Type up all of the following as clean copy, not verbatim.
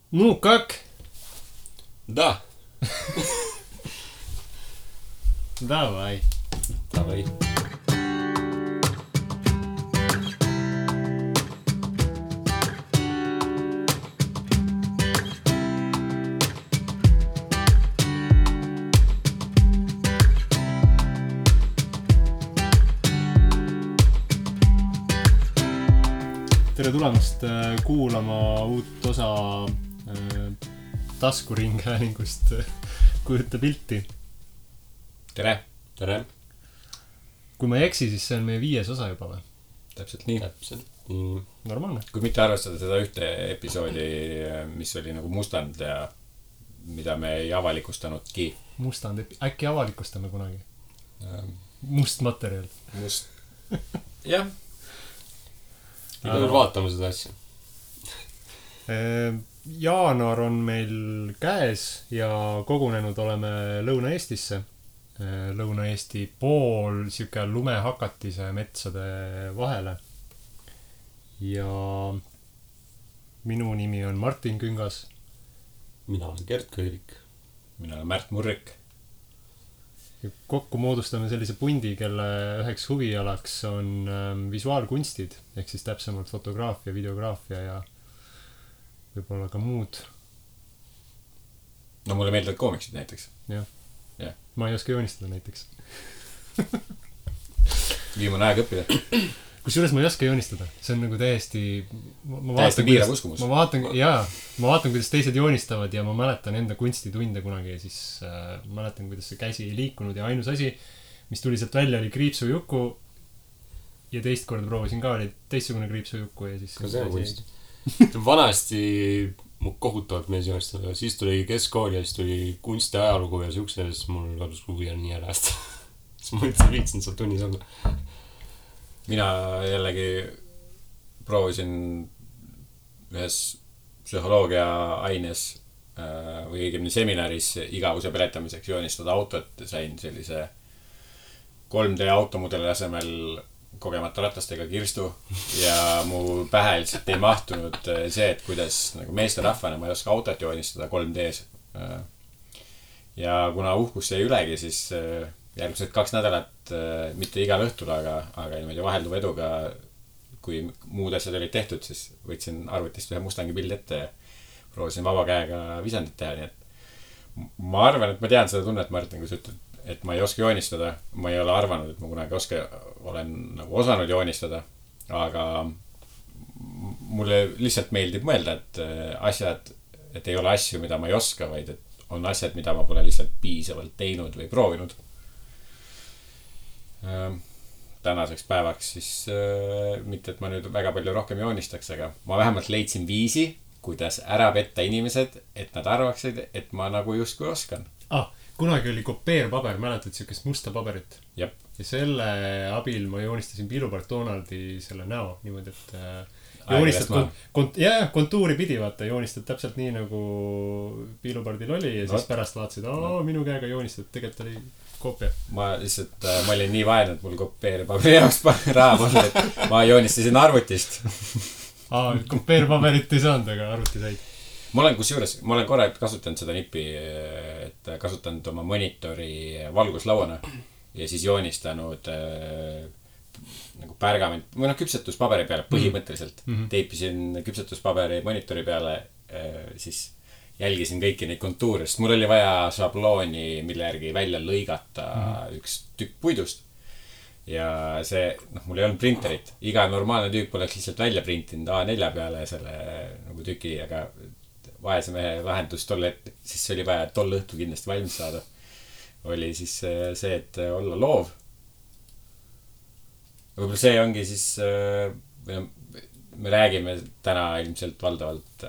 Ну, как? Да. Давай. Давай. Tere tulemast kuulama uut osa taskuringhäälingust Kujuta pilti. Tere. Tere. Kui ma ei eksi, siis see on meie 5. osa juba või? Täpselt nii. Normaalne. Kui mitte arvestada seda ühte episoodi, mis oli nagu mustand ja mida me ei avalikustanudki. Mustand, äkki avalikustame kunagi? Must materjal. Must. Jah. Iga veel vaatame seda asja. Jaanuar on meil käes ja kogunenud oleme Lõuna-Eestisse. Lõuna-Eesti pool siuke lumehakatise metsade vahele. Ja minu nimi on Martin Küngas. Mina olen Gert Köirik. Mina olen Märt Murrik. Ja kokku moodustame sellise pundi, kelle üheks huvialaks on visuaalkunstid, ehk siis täpsemalt fotograafia, videograafia ja võib-olla ka muud. No mulle meeldivad koomiksid näiteks. Jah. Jah. Ma ei oska joonistada näiteks. Viimane aeg õppida. Kusjuures ma ei oska joonistada. See on nagu täiesti... Täiesti piirav uskumus. Ma vaatan, kuidas teised joonistavad ja ma mäletan enda kunstitunde kunagi ja siis mäletan, kuidas see käsi ei liikunud ja ainus asi, mis tuli sealt välja, oli kriipsujuku ja teist korda proovisin ka, oli teistsugune kriipsujuku ja siis... Ka see on kunst. Vanasti mu kohutavalt mees joonistada. Siis tuli keskkool ja siis tuli kunsti ajalugu ja siukse ja siis mul kadus huvi on nii ärast. Siis ma üldse viitsin seal tunnis olla. Mina jällegi proovisin ühes psühholoogia aines või õigemini seminaris igavuse peletamiseks joonistada autot. Sain sellise 3D automudeli asemel kogemata ratastega kirstu ja mu pähe lihtsalt ei mahtunud see, et kuidas nagu meesterahvana ma ei oska autot joonistada 3D's. Ja kuna uhkus jäi ülegi, siis järgmised 2 nädalat, mitte igal õhtul, aga niimoodi vahelduva eduga, kui muud asjad olid tehtud, siis võtsin arvutist ühe Mustangi pildi ette ja proovisin vaba käega visandit teha. Nii et ma arvan, et ma tean seda tunnet, Martin, kui sa ütled, et ma ei oska joonistada. Ma ei ole arvanud, et ma kunagi olen nagu osanud joonistada, aga mulle lihtsalt meeldib mõelda, et asjad, et ei ole asju, mida ma ei oska, vaid et on asjad, mida ma pole lihtsalt piisavalt teinud või proovinud. Tänaseks päevaks siis mitte, et ma nüüd väga palju rohkem joonistaks, aga ma vähemalt leidsin viisi, kuidas ära petta inimesed, et nad arvaksid, et ma nagu justkui oskan. Kunagi oli kopeerpaber, mäletad siukest musta paberit? Jep. Ja selle abil ma joonistasin Piilupart Donaldi selle näo niimoodi, et joonistad kontuuri pidi, vaata, joonistad täpselt nii nagu Piilupardil oli ja siis pärast vaatasid, minu käega joonistad, tegelikult oli koopia. Ma olin nii vaene, et mul kopeerpaberi jaoks raha polnud, et ma joonistasin arvutist. Kopeerpaberit ei saanud, aga arvuti said. Ma olen korra kasutanud seda nippi, et kasutanud oma monitori valguslauana ja siis joonistanud nagu pärgament või küpsetuspaberi peale põhimõtteliselt. Teipisin küpsetuspaberi monitori peale, siis jälgisin kõiki neid kontuure, sest mul oli vaja šablooni, mille järgi välja lõigata üks tükk puidust. Ja see, mul ei olnud printerit. Iga normaalne tüüp oleks lihtsalt välja printinud A4 peale selle nagu tüki, aga vaese mehe lahendus tolle, siis oli vaja tol õhtu kindlasti valmis saada. Oli siis see, et olla loov. Võib-olla see ongi siis, me räägime täna ilmselt valdavalt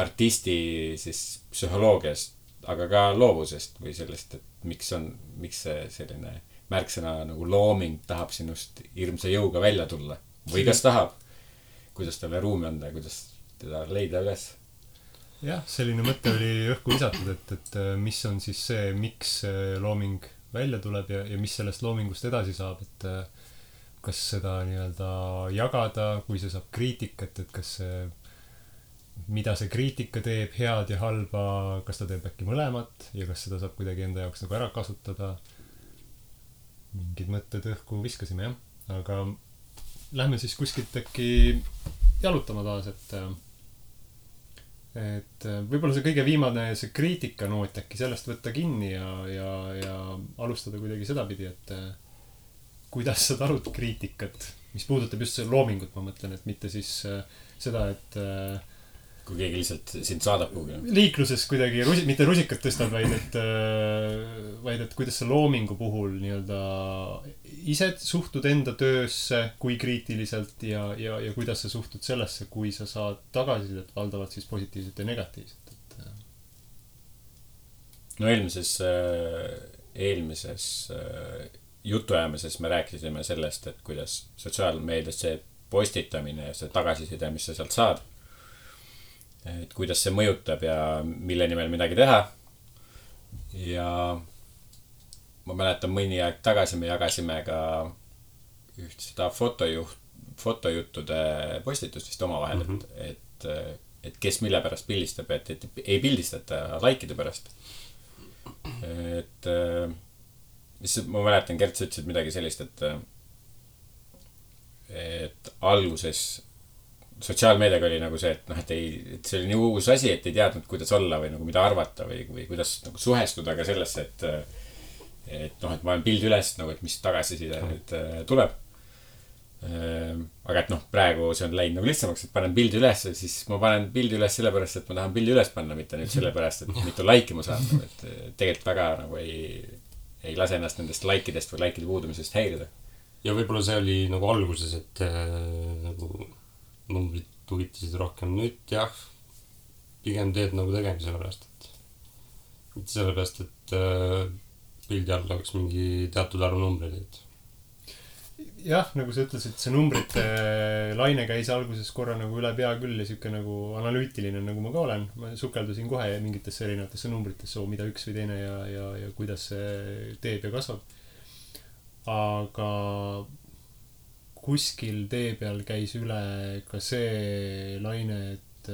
artisti siis psühholoogiast, aga ka loovusest või sellest, et miks see selline märksõna nagu looming tahab sinust hirmsa jõuga välja tulla. Või kas tahab, kuidas talle ruumi anda ja kuidas teda leida üles. Jah, selline mõte oli õhku lisatud, et mis on siis see, miks looming välja tuleb ja mis sellest loomingust edasi saab, et kas seda nii-öelda jagada, kui see saab kriitikat, et kas see mida see kriitika teeb, head ja halba, kas ta teeb äkki mõlemat ja kas seda saab kuidagi enda jaoks nagu ära kasutada. Mingid mõtted õhku viskasime, jah. Aga lähme siis kuskilt äkki jalutama taas, et võib-olla see kõige viimane, see kriitikanoot äkki sellest võtta kinni ja alustada kuidagi sedapidi, et kuidas sa talud kriitikat, mis puudutab just see loomingut, ma mõtlen, et mitte siis seda, et kui keegi lihtsalt sind saadab kuhugi. Liikluses kuidagi mitte rusikat tõstad, vaid et kuidas sa loomingu puhul nii-öelda ise suhtud enda töösse, kui kriitiliselt ja kuidas sa suhtud sellesse, kui sa saad tagasisidet valdavalt siis positiivset ja negatiivset. No eelmises jutuajamises me rääkisime sellest, et kuidas sotsiaalmeedias see postitamine ja see tagasiside, mis sa sealt saad, et kuidas see mõjutab ja mille nimel midagi teha. Ja ma mäletan mõni aeg tagasi me jagasime ka üht seda fotojuttude postitust vist omavahel, et kes mille pärast pildistab, et ei pildistata likeide pärast. Et ma mäletan, Gert, sa ütlesid midagi sellist, et alguses sotsiaalmeediaga oli nagu see, et et see oli nii uus asi, et ei teadnud, kuidas olla või nagu mida arvata või kuidas nagu suhestuda ka sellesse, et ma olen pildi üles, nagu, et mis tagasiside nüüd tuleb. Aga et praegu see on läinud nagu lihtsamaks, et panen pildi üles, siis ma panen pildi üles sellepärast, et ma tahan pildi üles panna, mitte nüüd sellepärast, et mitu laiki ma saan. Et tegelikult väga nagu ei lase ennast nendest laikidest või laikide puudumisest häirida. Ja võib-olla see oli nagu alguses, et nagu numbrid huvitasid rohkem. Nüüd jah, pigem teed nagu tegemise pärast, et mitte sellepärast, et pildi all oleks mingi teatud arv numbreid, et jah, nagu sa ütlesid, see numbrite laine käis alguses korra nagu üle pea küll ja siuke nagu analüütiline, nagu ma ka olen. Ma sukeldusin kohe mingitesse erinevatesse numbritesse, mida üks või teine ja kuidas see teeb ja kasvab. Aga kuskil tee peal käis üle ka see laine, et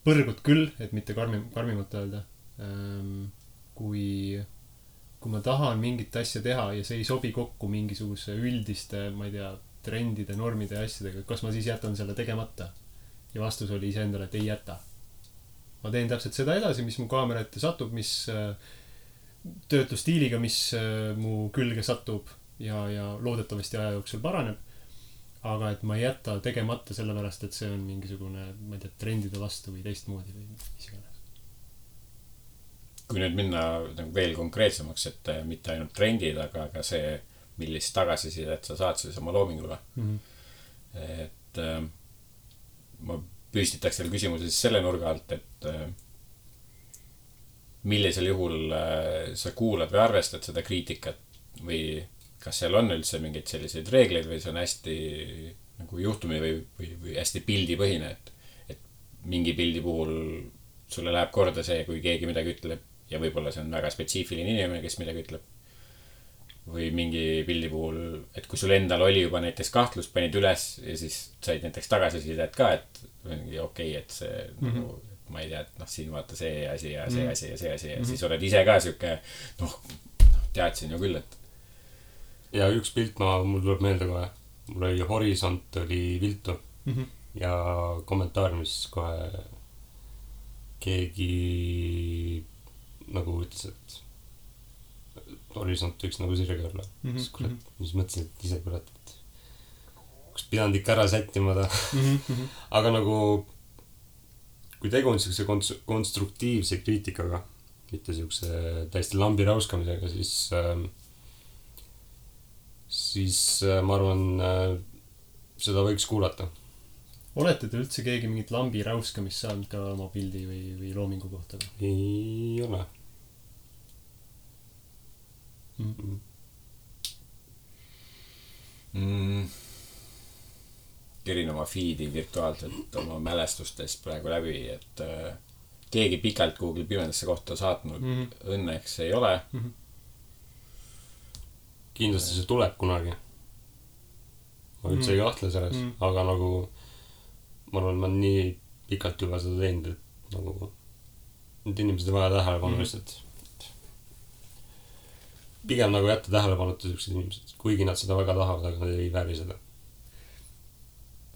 põrgud küll, et mitte karmimalt öelda. Kui ma tahan mingit asja teha ja see ei sobi kokku mingisuguse üldiste, ma ei tea, trendide, normide ja asjadega, kas ma siis jätan selle tegemata? Ja vastus oli iseendale, et ei jäta. Ma teen täpselt seda edasi, mis mu kaamera ette satub, mis töötlusstiiliga, mis mu külge satub ja loodetavasti aja jooksul paraneb. Aga et ma ei jäta tegemata sellepärast, et see on mingisugune, ma ei tea, trendide vastu või teistmoodi või mis iganes. Kui nüüd minna veel konkreetsemaks, et mitte ainult trendid, aga ka see, millist tagasisidet sa saad siis oma loomingule. Et ma püstitaks selle küsimuse siis selle nurga alt, et millisel juhul sa kuulad või arvestad seda kriitikat või kas seal on üldse mingeid selliseid reegleid või see on hästi nagu juhtumi või hästi pildipõhine, et mingi pildi puhul sulle läheb korda see, kui keegi midagi ütleb ja võib-olla see on väga spetsiifiline inimene, kes midagi ütleb või mingi pildi puhul, et kui sul endal oli juba näiteks kahtlus, panid üles ja siis said näiteks tagasisidet ka, et okei, et see nagu, ma ei tea, et siin vaata see asi ja see asi ja see asi ja siis oled ise ka siuke teadsin ju küll, et ja üks pilt mul tuleb meelde kohe. Mul oli horisont oli viltu ja kommentaariumis kohe keegi nagu ütles, et horisont võiks nagu sirge olla. Siis mõtlesin, et ise kurat, et kus pidanud ikka ära sättima ta. Aga nagu kui tegu on siukse konstruktiivse kriitikaga, mitte siukse täiesti lambi rauskamisega, siis ma arvan, seda võiks kuulata. Olete te üldse keegi mingit lambi rauskamist saanud ka oma pildi või loomingu kohta? Ei ole. Kerin oma feedi virtuaalselt oma mälestustes praegu läbi, et keegi pikalt Google pimedasse kohta saatnud õnneks ei ole. Kindlasti see tuleb kunagi. Ma üldse ei kahtle selles, aga nagu ma arvan, ma nii pikalt juba seda teinud, et nagu need inimesed on vaja tähelepanu lihtsalt. Pigem nagu jätta tähelepanuta sellised inimesed, kuigi nad seda väga tahavad, aga nad ei vääri seda.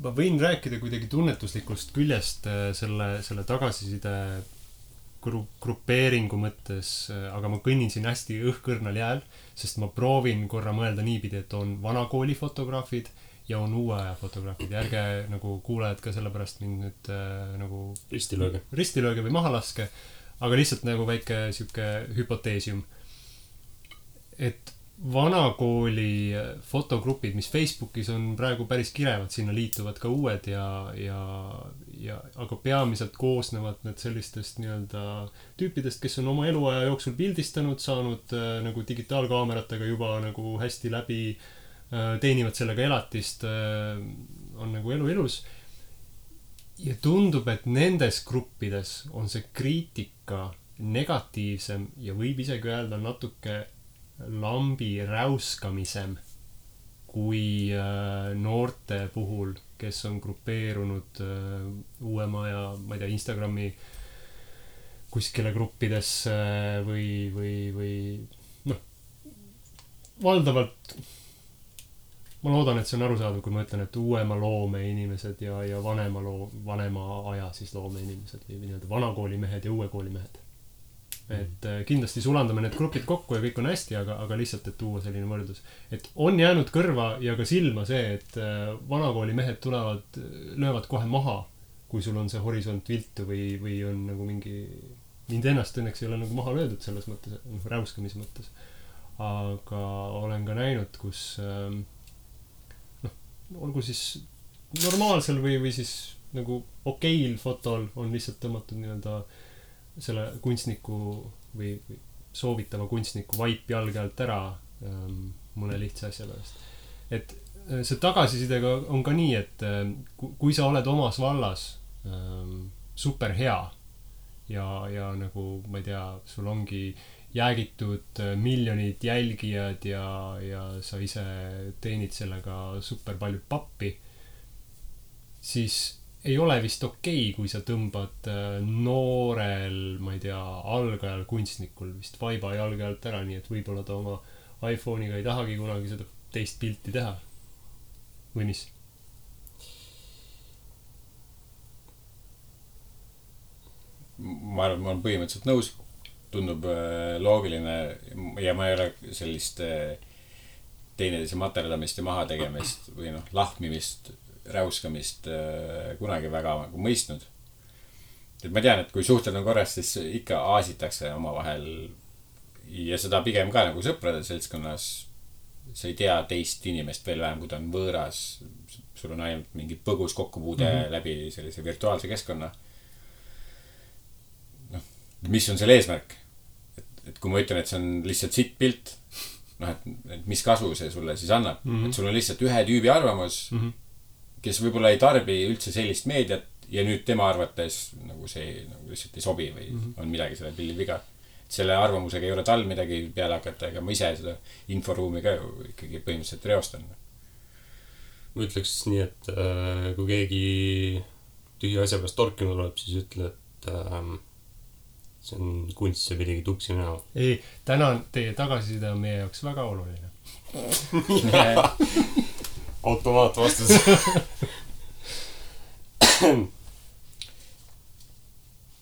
Ma võin rääkida kuidagi tunnetuslikust küljest selle tagasiside grupeeringu mõttes, aga ma kõnnin siin hästi õhkõrnal jääl, sest ma proovin korra mõelda niipidi, et on vanakooli fotograafid ja on uue aja fotograafid. Ja ärge nagu kuulajad ka sellepärast mind nüüd nagu ristilööge või maha laske, aga lihtsalt nagu väike siuke hüpoteesium. Et vanakooli fotogrupid, mis Facebookis on praegu päris kirevad, sinna liituvad ka uued aga peamiselt koosnevad need sellistest nii-öelda tüüpidest, kes on oma eluaja jooksul pildistanud, saanud nagu digitaalkaameratega juba nagu hästi läbi, teenivad sellega elatist, on nagu elu ilus. Ja tundub, et nendes gruppides on see kriitika negatiivsem ja võib isegi öelda natuke lambi räuskamisem kui noorte puhul, kes on grupeerunud uuema ja, ma ei tea, Instagrami kuskile gruppidesse või noh, valdavalt ma loodan, et see on arusaadav, kui ma ütlen, et uuema loome inimesed ja vanema aja siis loome inimesed või nii-öelda vanakooli mehed ja uue kooli mehed. Et kindlasti sulandame need grupid kokku ja kõik on hästi, aga lihtsalt, et tuua selline võrdlus. Et on jäänud kõrva ja ka silma see, et vanakooli mehed löövad kohe maha, kui sul on see horisont viltu või on nagu mind ennast õnneks ei ole nagu maha löödud selles mõttes, räuskamise mõttes. Aga olen ka näinud, kus olgu siis normaalsel või siis nagu okeil fotol on lihtsalt tõmmatud nii-öelda selle kunstniku või soovitava kunstniku vaip jalge alt ära mõne lihtsa asja pärast. Et see tagasisidega on ka nii, et kui sa oled omas vallas super hea ja nagu, ma ei tea, sul ongi jäägitud miljonid jälgijad ja sa ise teenid sellega super palju pappi, siis ei ole vist okei, kui sa tõmbad noorel, ma ei tea, algajal kunstnikul vist vaiba jalge alt ära, nii et võib-olla ta oma iPhone'iga ei tahagi kunagi seda teist pilti teha. Või mis? Ma arvan, ma olen põhimõtteliselt nõus. Tundub loogiline ja ma ei ole sellist teineteise materdamist ja maha tegemist või lahmimist räuskamist kunagi väga nagu mõistnud. Et ma tean, et kui suhted on korras, siis ikka aasitakse omavahel ja seda pigem ka nagu sõprade seltskonnas. Sa ei tea teist inimest veel vähem, kui ta on võõras. Sul on ainult mingi põgus kokkupuude läbi sellise virtuaalse keskkonna. Mis on selle eesmärk? Et kui ma ütlen, et see on lihtsalt sitt pilt, et mis kasu see sulle siis annab? Et sul on lihtsalt ühe tüübi arvamus, kes võib-olla ei tarbi üldse sellist meediat ja nüüd tema arvates nagu see nagu lihtsalt ei sobi või on midagi selle pildil viga. Selle arvamusega ei ole tal midagi peale hakata, ega ma ise seda inforuumi ka ikkagi põhimõtteliselt reostan. Ma ütleks nii, et kui keegi tühja asja pärast torkima tuleb, siis ütle, et see on kunst, see pidigi tuksi näha. Ei, tänan, teie tagasiside on meie jaoks väga oluline. Automaat vastus.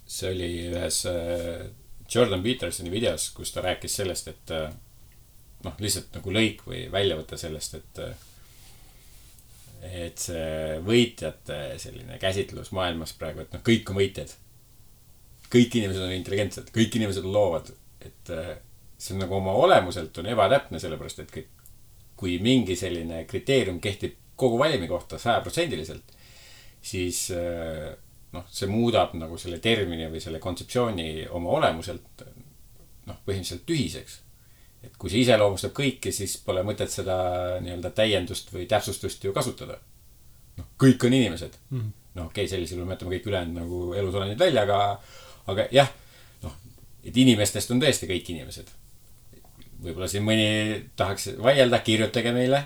See oli ühes Jordan Petersoni videos, kus ta rääkis sellest, et lihtsalt nagu lõik või väljavõte sellest, et see võitjate selline käsitlus maailmas praegu, et kõik on võitjad. Kõik inimesed on intelligentsed, kõik inimesed on loovad. Et see on nagu oma olemuselt on ebatäpne, sellepärast, et kui mingi selline kriteerium kehtib kogu valimi kohta 100%, siis see muudab nagu selle termini või selle kontseptsiooni oma olemuselt põhimõtteliselt tühiseks. Et kui see iseloomustab kõiki, siis pole mõtet seda nii-öelda täiendust või täpsustust ju kasutada. Kõik on inimesed. Okei, sellisel me mõtleme kõik ülejäänud nagu elusolendid välja, aga jah, et inimestest on tõesti kõik inimesed. Võib-olla siin mõni tahaks vaielda, kirjutage meile,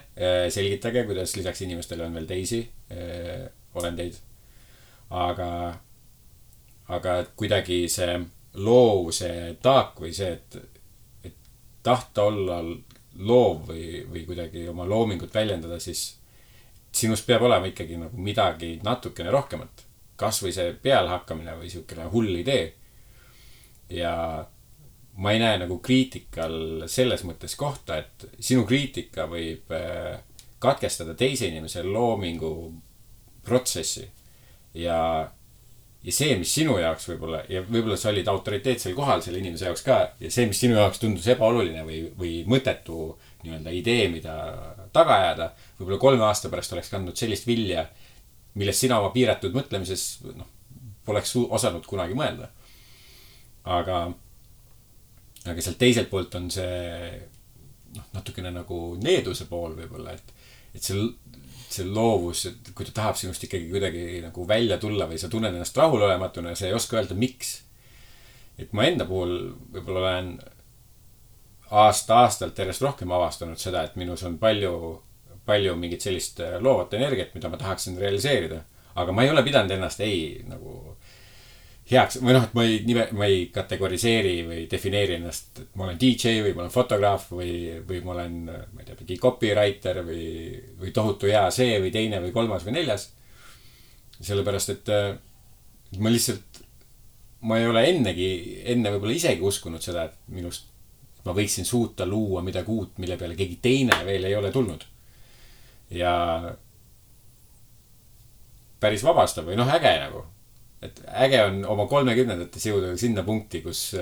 selgitage, kuidas lisaks inimestele on veel teisi olendeid. aga kuidagi see loovuse taak või see, et tahta olla loov või kuidagi oma loomingut väljendada, siis sinust peab olema ikkagi nagu midagi natukene rohkemat. Kas või see pealehakkamine või siukene hull idee. Ja ma ei näe nagu kriitikal selles mõttes kohta, et sinu kriitika võib katkestada teise inimese loomingu protsessi. Ja see, mis sinu jaoks võib-olla sa olid autoriteetsel kohal selle inimese jaoks ka, ja see, mis sinu jaoks tundus ebaoluline või mõttetu nii-öelda idee, mida taga ajada, võib-olla 3 aasta pärast oleks kandnud sellist vilja, millest sina oma piiratud mõtlemises poleks osanud kunagi mõelda. Aga sealt teiselt poolt on see natukene nagu needuse pool võib-olla, et see loovus, et kui ta tahab sinust ikkagi kuidagi nagu välja tulla või sa tunned ennast rahulolematuna ja sa ei oska öelda, miks. Et ma enda puhul võib-olla olen aasta-aastalt järjest rohkem avastanud seda, et minus on palju mingit sellist loovat energiat, mida ma tahaksin realiseerida. Aga ma ei ole pidanud ennast nagu heaks, või et ma ei kategoriseeri või defineeri ennast, et ma olen DJ või ma olen fotograaf või ma olen, ma ei tea, mingi copywriter või tohutu hea see või teine või kolmas või neljas. Sellepärast, et ma ei ole enne võib-olla isegi uskunud seda, et minust ma võiksin suuta luua midagi uut, mille peale keegi teine veel ei ole tulnud. Ja päris vabastav või äge nagu. Et äge on oma 30-ndates jõuda sinna punkti, kus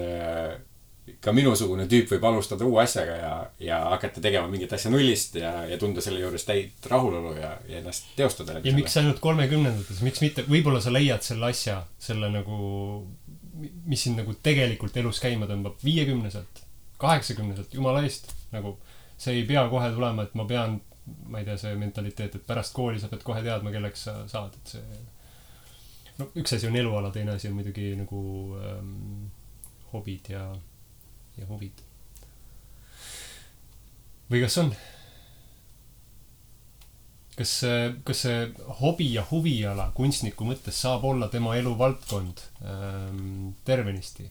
ka minusugune tüüp võib alustada uue asjaga ja hakata tegema mingit asja nullist ja tunda selle juures täit rahulolu ja ennast teostada. Ja miks ainult 30-ndates? Miks mitte? Võibolla sa leiad selle asja, selle nagu, mis sind nagu tegelikult elus käima tõmbab 50-selt, 80-selt, jumala eest. Nagu see ei pea kohe tulema, et ma pean, ma ei tea, see mentaliteet, et pärast kooli sa pead kohe teadma, kelleks sa saad. Et see, üks asi on eluala, teine asi on muidugi nagu hobid ja huvid. Või kas on? Kas see hobi ja huviala kunstniku mõttes saab olla tema elu valdkond tervenisti?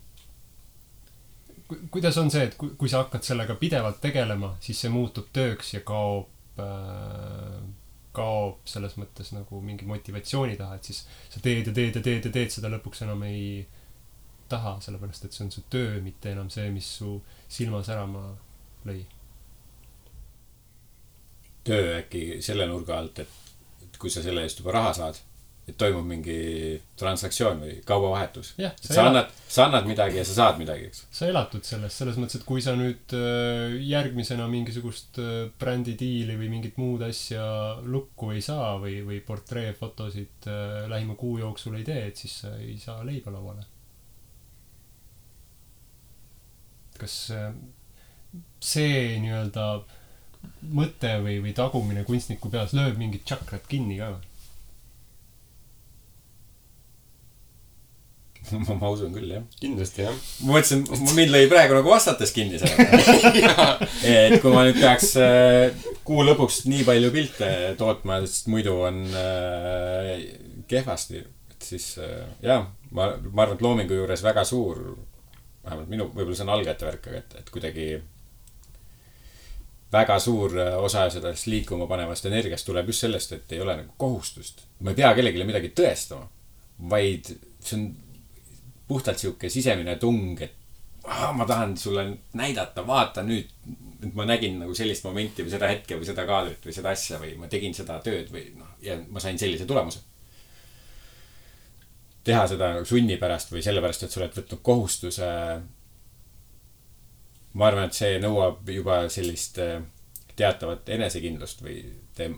Kuidas on see, et kui sa hakkad sellega pidevalt tegelema, siis see muutub tööks ja kaob selles mõttes nagu mingi motivatsiooni taha, et siis sa teed seda lõpuks enam ei taha, sellepärast et see on su töö, mitte enam see, mis su silma särama lõi. Töö äkki selle nurga alt, et kui sa selle eest juba raha saad, et toimub mingi transaktsioon või kaubavahetus. Sa annad midagi ja sa saad midagi, eks? Sa elatud selles mõttes, et kui sa nüüd järgmisena mingisugust brändidiili või mingit muud asja lukku ei saa või portreefotosid lähima kuu jooksul ei tee, et siis sa ei saa leiba lauale. Kas see nii-öelda mõte või tagumine kunstniku peas lööb mingit tšakrat kinni ka või? Ma usun küll, jah. Kindlasti, jah. Ma mõtlesin, mind lõi praegu nagu vastates kinni selle. Et kui ma nüüd peaks kuu lõpuks nii palju pilte tootma, sest muidu on kehvasti, et siis jah, ma arvan, et loomingu juures väga suur, vähemalt minu, võib-olla see on algajate värk, et kuidagi väga suur osa sellest liikuma panevast energiast tuleb just sellest, et ei ole nagu kohustust. Ma ei pea kellegile midagi tõestama, vaid see on puhtalt siuke sisemine tung, et ma tahan sulle näidata, vaata nüüd, et ma nägin nagu sellist momenti või seda hetke või seda kaadrit või seda asja või ma tegin seda tööd või ja ma sain sellise tulemuse. Teha seda sunni pärast või sellepärast, et sa oled võtnud kohustuse. Ma arvan, et see nõuab juba sellist teatavat enesekindlust või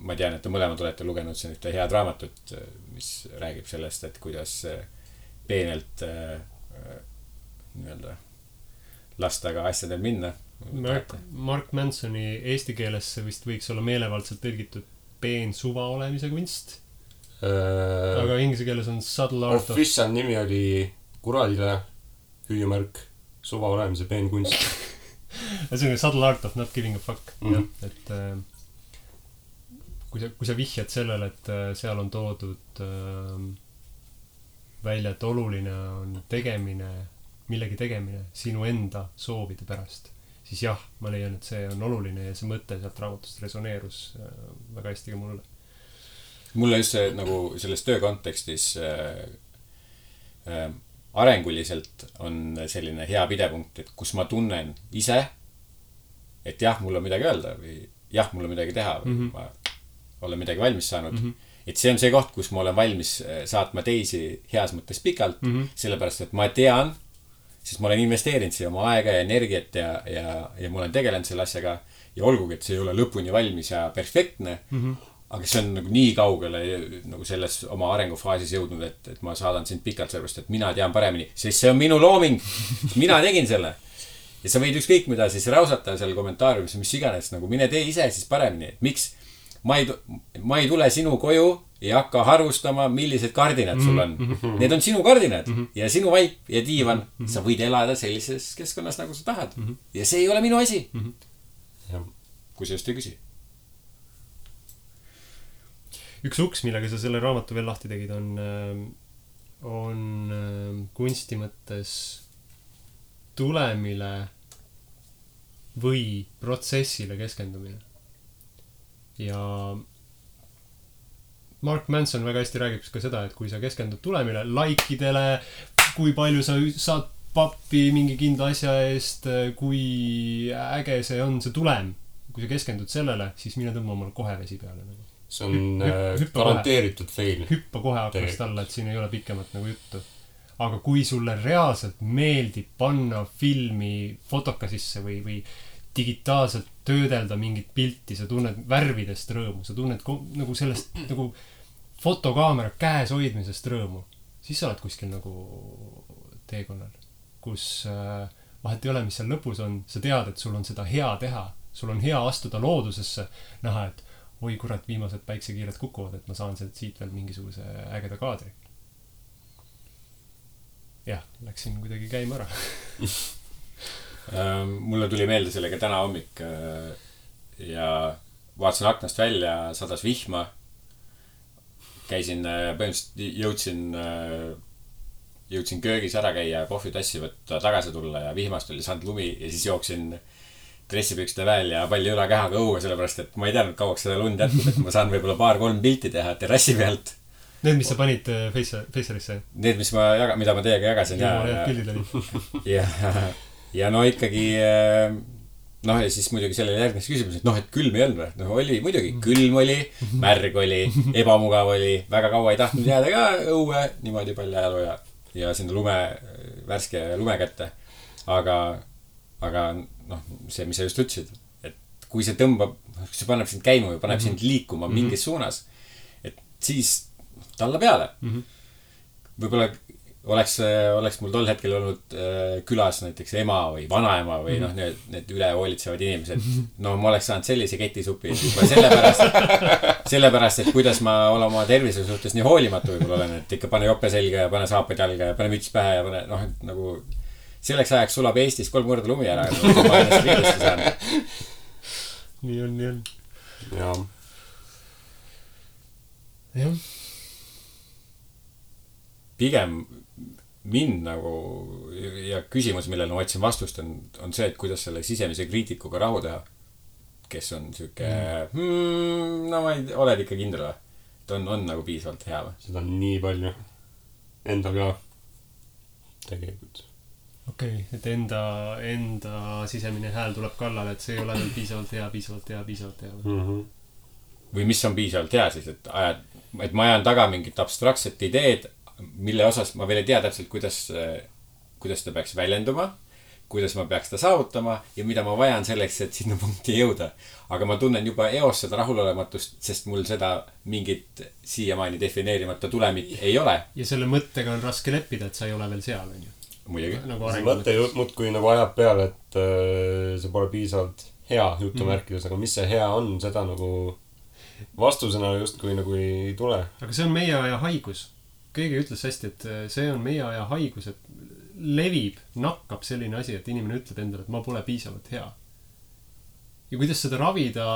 ma tean, et te mõlemad olete lugenud siin ühte head raamatut, mis räägib sellest, et kuidas peenelt nii-öelda lasta ka asjadel minna. Mark Mansoni eesti keelesse vist võiks olla meelevaldselt tõlgitud peen suva olemise kunst. Aga inglise keeles on subtle art of... Official nimi oli kuradile hüüumärk suva olemise peen kunst. See on subtle art of not giving a fuck. Et kui sa vihjad sellele, et seal on toodud välja, et oluline on tegemine, millegi tegemine sinu enda soovide pärast, siis jah, ma leian, et see on oluline ja see mõte sealt raamatust resoneerus väga hästi ka mulle. Mulle just see nagu selles töö kontekstis arenguliselt on selline hea pidepunkt, et kus ma tunnen ise, et jah, mul on midagi öelda või jah, mul on midagi teha või ma olen midagi valmis saanud. Et see on see koht, kus ma olen valmis saatma teisi heas mõttes pikalt, sellepärast, et ma tean, sest ma olen investeerinud siia oma aega ja energiat ja ma olen tegelenud selle asjaga ja olgugi, et see ei ole lõpuni valmis ja perfektne, aga see on nagu nii kaugele nagu selles oma arengufaasis jõudnud, et ma saadan sind pikalt sellepärast, et mina tean paremini, sest see on minu looming, mina tegin selle. Ja sa võid ükskõik mida siis rausata seal kommentaariumis, mis iganes, nagu mine tee ise siis paremini, et miks ma ei tule sinu koju ja hakka harvustama, millised kardinad sul on. Need on sinu kardinad ja sinu vaip ja diivan. Sa võid elada sellises keskkonnas, nagu sa tahad. Ja see ei ole minu asi. Kui sa just ei küsi. Üks uks, millega sa selle raamatu veel lahti tegid, on kunsti mõttes tulemile või protsessile keskendumine. Ja Mark Manson väga hästi räägib ka seda, et kui sa keskendud tulemile, laikidele, kui palju sa saad pappi mingi kindla asja eest, kui äge see on, see tulem. Kui sa keskendud sellele, siis mine tõmba omal kohe vesi peale. See on garanteeritud fail. Hüppa kohe aknast alla, et siin ei ole pikemat nagu juttu. Aga kui sulle reaalselt meeldib panna filmi fotoka sisse või digitaalselt töödelda mingit pilti, sa tunned värvidest rõõmu, sa tunned nagu sellest nagu fotokaamera käes hoidmisest rõõmu, siis sa oled kuskil nagu teekonnal, kus vahet ei ole, mis seal lõpus on, sa tead, et sul on seda hea teha, sul on hea astuda loodusesse, näha, et oi kurat, viimased päiksekiired kukuvad, et ma saan siit veel mingisuguse ägeda kaadri. Jah, läksin kuidagi käima ära. Mulle tuli meelde sellega täna hommik ja vaatasin aknast välja, sadas vihma. Käisin, põhimõtteliselt jõudsin köögis ära käia, kohvitassi võtta, tagasi tulla ja vihmast oli saanud lumi ja siis jooksin dressipükside väel ja palli ülakehaga õue, sellepärast et ma ei teadnud kauaks seda lund jätkub, et ma saan võib-olla 2-3 pilti teha terrassi pealt. Need, mis sa panid Facerisse? Need, mida ma teiega jagasin. Ja no ikkagi, ja siis muidugi sellele järgnes küsimus, et et külm ei olnud või? No oli muidugi, külm oli, märg oli, ebamugav oli, väga kaua ei tahtnud jääda ka õue, niimoodi palju ajalu ja sinna värske lume kätte. Aga see, mis sa just ütlesid, et kui see tõmbab, see paneb sind käima või paneb sind liikuma mingis suunas, et siis talla peale. Võib-olla oleks mul tol hetkel olnud külas näiteks ema või vanaema või need üle hoolitsevad inimesed. No ma oleks saanud sellise ketisupi sellepärast, et kuidas ma olen oma tervise suhtes nii hoolimatu võib-olla olen, et ikka pane jope selga ja pane saapad jalga ja pane müts pähe ja pane, nagu selleks ajaks sulab Eestis 3 korda lumi ära, et ma ennast viidesti saan. Nii on. Jah. Pigem mind nagu ja küsimus, millele ma otsin vastust on see, et kuidas selle sisemise kriitikuga rahu teha, kes on siuke ma ei oled ikka kindel või? Et on nagu piisavalt hea või? Seda on nii palju endal ka tegelikult. Okei, et enda sisemine hääl tuleb kallale, et see ei ole veel piisavalt hea või? Või mis on piisavalt hea siis, et ma ajan taga mingit abstraktset ideed, mille osas ma veel ei tea täpselt, kuidas ta peaks väljenduma, kuidas ma peaks ta saavutama ja mida ma vajan selleks, et sinna punkti jõuda. Aga ma tunnen juba eos seda rahulolematust, sest mul seda mingit siiamaani defineerimata tulemit ei ole. Ja selle mõttega on raske leppida, et sa ei ole veel seal, on ju? Muidugi. See mõte muudkui nagu ajab peale, et see pole piisavalt hea jutumärkides, aga mis see hea on, seda nagu vastusena justkui nagu ei tule. Aga see on meie aja haigus. Keegi ütles hästi, et see on meie aja haigus, et levib, nakkab selline asi, et inimene ütleb endale, et ma pole piisavalt hea. Ja kuidas seda ravida,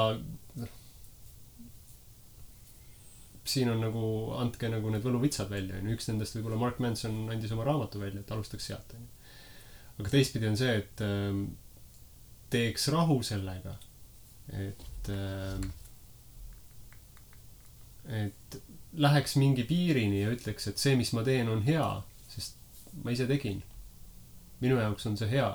siin on nagu, andke nagu need võluvitsad välja, on ju. Üks nendest võib-olla Mark Manson andis oma raamatu välja, et alustaks sealt, on ju. Aga teistpidi on see, et teeks rahu sellega, et läheks mingi piirini ja ütleks, et see, mis ma teen, on hea, sest ma ise tegin. Minu jaoks on see hea.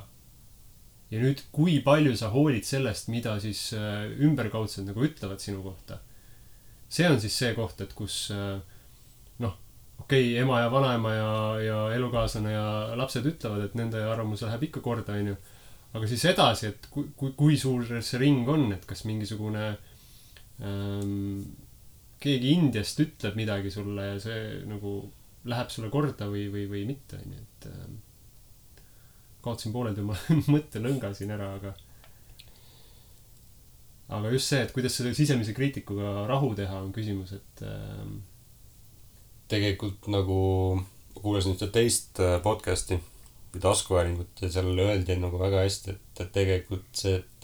Ja nüüd, kui palju sa hoolid sellest, mida siis ümberkaudsed nagu ütlevad sinu kohta. See on siis see koht, et kus okei, ema ja vanaema ja elukaaslane ja lapsed ütlevad, et nende arvamus läheb ikka korda, on ju. Aga siis edasi, et kui suur see ring on, et kas mingisugune keegi Indiast ütleb midagi sulle ja see nagu läheb sulle korda või mitte, on ju, et kaotsin pooled oma mõttelõnga siin ära, aga just see, et kuidas selle sisemise kriitikuga rahu teha, on küsimus, et tegelikult nagu kuulasin ühte teist podcasti või taskuhäälingut ja seal öeldi nagu väga hästi, et tegelikult see, et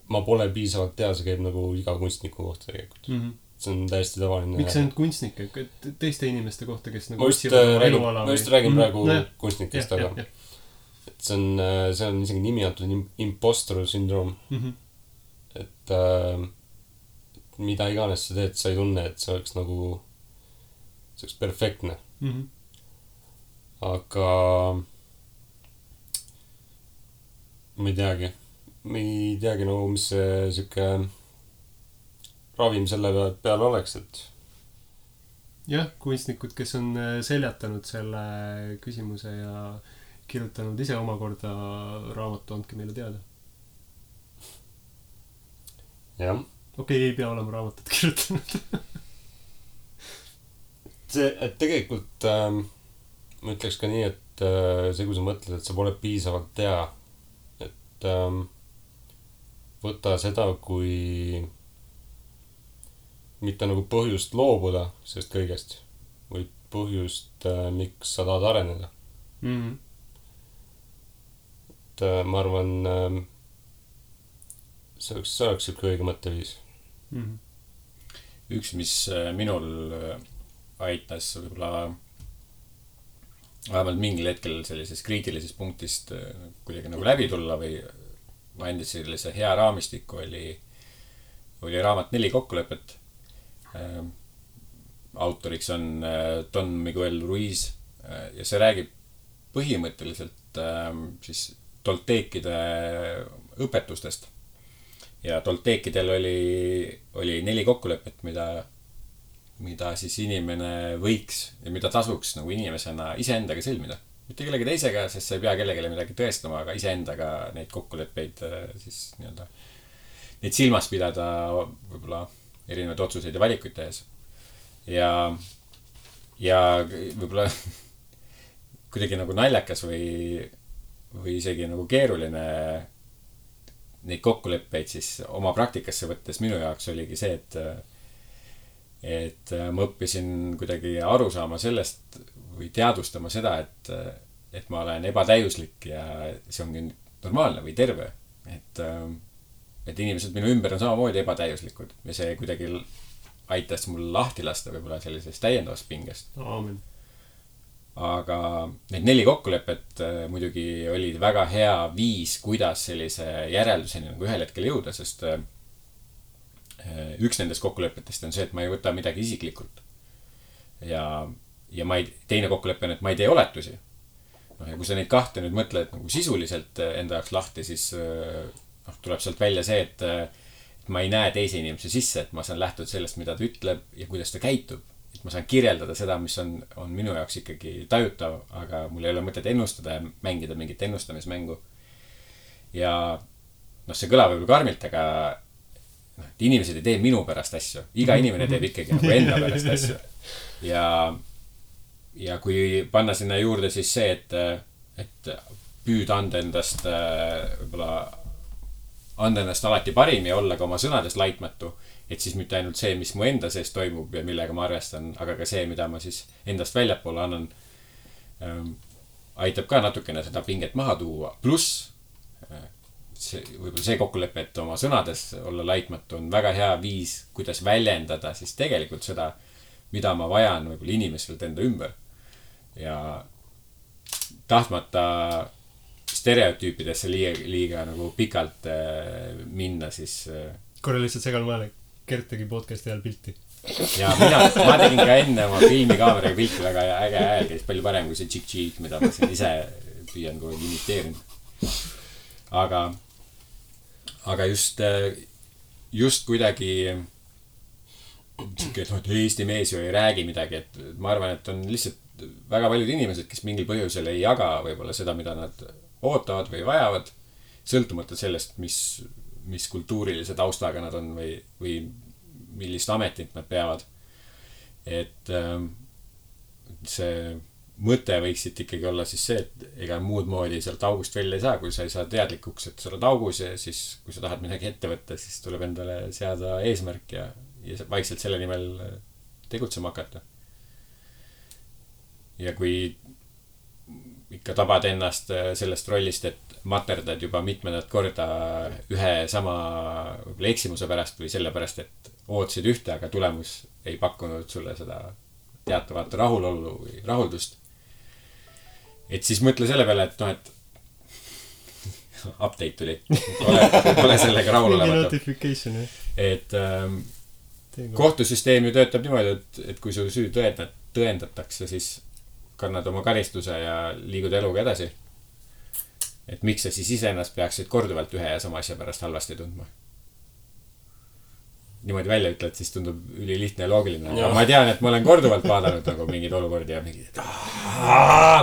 ma pole piisavalt hea, see käib nagu iga kunstniku kohta tegelikult. See on täiesti tavaline. Miks ainult kunstnike? Teiste inimeste kohta, kes nagu ma just räägin praegu kunstnikest, aga et see on isegi nimi antud impostor syndroom. Et mida iganes sa teed, sa ei tunne, et see oleks perfektne. Aga ma ei teagi nagu, mis see siuke ravim selle peal oleks, et jah, kunstnikud, kes on seljatanud selle küsimuse ja kirjutanud ise omakorda raamatu, andke meile teada. jah. Okei, ei pea olema raamatut kirjutanud. et tegelikult ma ütleks ka nii, et see, kui sa mõtled, et sa pole piisavalt hea, et võta seda kui mitte nagu põhjust loobuda sellest kõigest, või põhjust, miks sa tahad areneda. Et ma arvan, see oleks siuke õige mõtteviis. Üks, mis minul aitas võib-olla vähemalt mingil hetkel sellisest kriitilisest punktist kuidagi nagu läbi tulla või andis sellise hea raamistiku, oli raamat 4 kokkulepet. Autoriks on Don Miguel Ruiz ja see räägib põhimõtteliselt siis tolteekide õpetustest. Ja tolteekidel oli 4 kokkulepet, mida siis inimene võiks ja mida tasuks nagu inimesena iseendaga sõlmida. Mitte kellegi teisega, sest sa ei pea kellegile midagi tõestama, aga iseendaga neid kokkuleppeid siis nii-öelda neid silmas pidada võib-olla erinevaid otsuseid ja valikuid tehes. Ja võib-olla kuidagi nagu naljakas või isegi nagu keeruline neid kokkuleppeid siis oma praktikasse võttes minu jaoks oligi see, et ma õppisin kuidagi aru saama sellest või teadvustama seda, et ma olen ebatäiuslik ja see ongi normaalne või terve. Et inimesed minu ümber on samamoodi ebatäiuslikud ja see kuidagi aitas mul lahti lasta võib-olla sellisest täiendavast pingest. Aamen. Aga need 4 kokkulepet muidugi olid väga hea viis, kuidas sellise järelduseni nagu ühel hetkel jõuda, sest üks nendest kokkulepetest on see, et ma ei võta midagi isiklikult. Ja teine kokkulepe on, et ma ei tee oletusi. Ja kui sa neid kahte nüüd mõtled nagu sisuliselt enda jaoks lahti, siis tuleb sealt välja see, et ma ei näe teise inimese sisse, et ma saan lähtuda sellest, mida ta ütleb ja kuidas ta käitub. Et ma saan kirjeldada seda, mis on minu jaoks ikkagi tajutav, aga mul ei ole mõtet ennustada ja mängida mingit ennustamismängu. Ja see kõlab võib-olla karmilt, aga inimesed ei tee minu pärast asju. Iga inimene teeb ikkagi nagu enda pärast asju. Ja kui panna sinna juurde siis see, et püüd anda endast võib-olla anda ennast alati parim ja olla ka oma sõnades laitmatu, et siis mitte ainult see, mis mu enda sees toimub ja millega ma arvestan, aga ka see, mida ma siis endast väljapoole annan, aitab ka natukene seda pinget maha tuua. Pluss võib-olla see kokkulepe, et oma sõnades olla laitmatu on väga hea viis, kuidas väljendada siis tegelikult seda, mida ma vajan võib-olla inimestelt enda ümber. Ja tahtmata stereotüüpidesse liiga nagu pikalt minna, siis korra lihtsalt segan vahele, Gert tegi podcasti ajal pilti. Ja ma tegin ka enne oma filmikaameraga pilti, väga äge hääl käis palju parem kui see tšik-tšik, mida ma siin ise püüan kogu imiteerinud. Aga just kuidagi et Eesti mees ju ei räägi midagi, et ma arvan, et on lihtsalt väga paljud inimesed, kes mingil põhjusel ei jaga võib-olla seda, mida nad ootavad või vajavad, sõltumata sellest, mis kultuurilise taustaga nad on või millist ametit nad peavad. Et see mõte võiksid ikkagi olla siis see, et ega muud moodi sealt august välja ei saa, kui sa ei saa teadlikuks, et sa oled augus ja siis, kui sa tahad midagi ette võtta, siis tuleb endale seada eesmärk ja vaikselt selle nimel tegutsema hakata. Ja kui ikka tabad ennast sellest rollist, et materdad juba mitmendat korda ühe sama eksimuse pärast või selle pärast, et ootasid ühte, aga tulemus ei pakkunud sulle seda teatavat rahulolu või rahuldust. Et siis mõtle selle peale, et et update tuli. Ole sellega rahul olemata. Et kohtusüsteem ju töötab niimoodi, et kui su süü tõendatakse, siis kannad oma karistuse ja liigud eluga edasi. Et miks sa siis iseennast peaksid korduvalt ühe ja sama asja pärast halvasti tundma? Niimoodi välja ütled, siis tundub ülilihtne ja loogiline. Ja ma tean, et ma olen korduvalt vaadanud nagu mingid olukordi ja mingid, et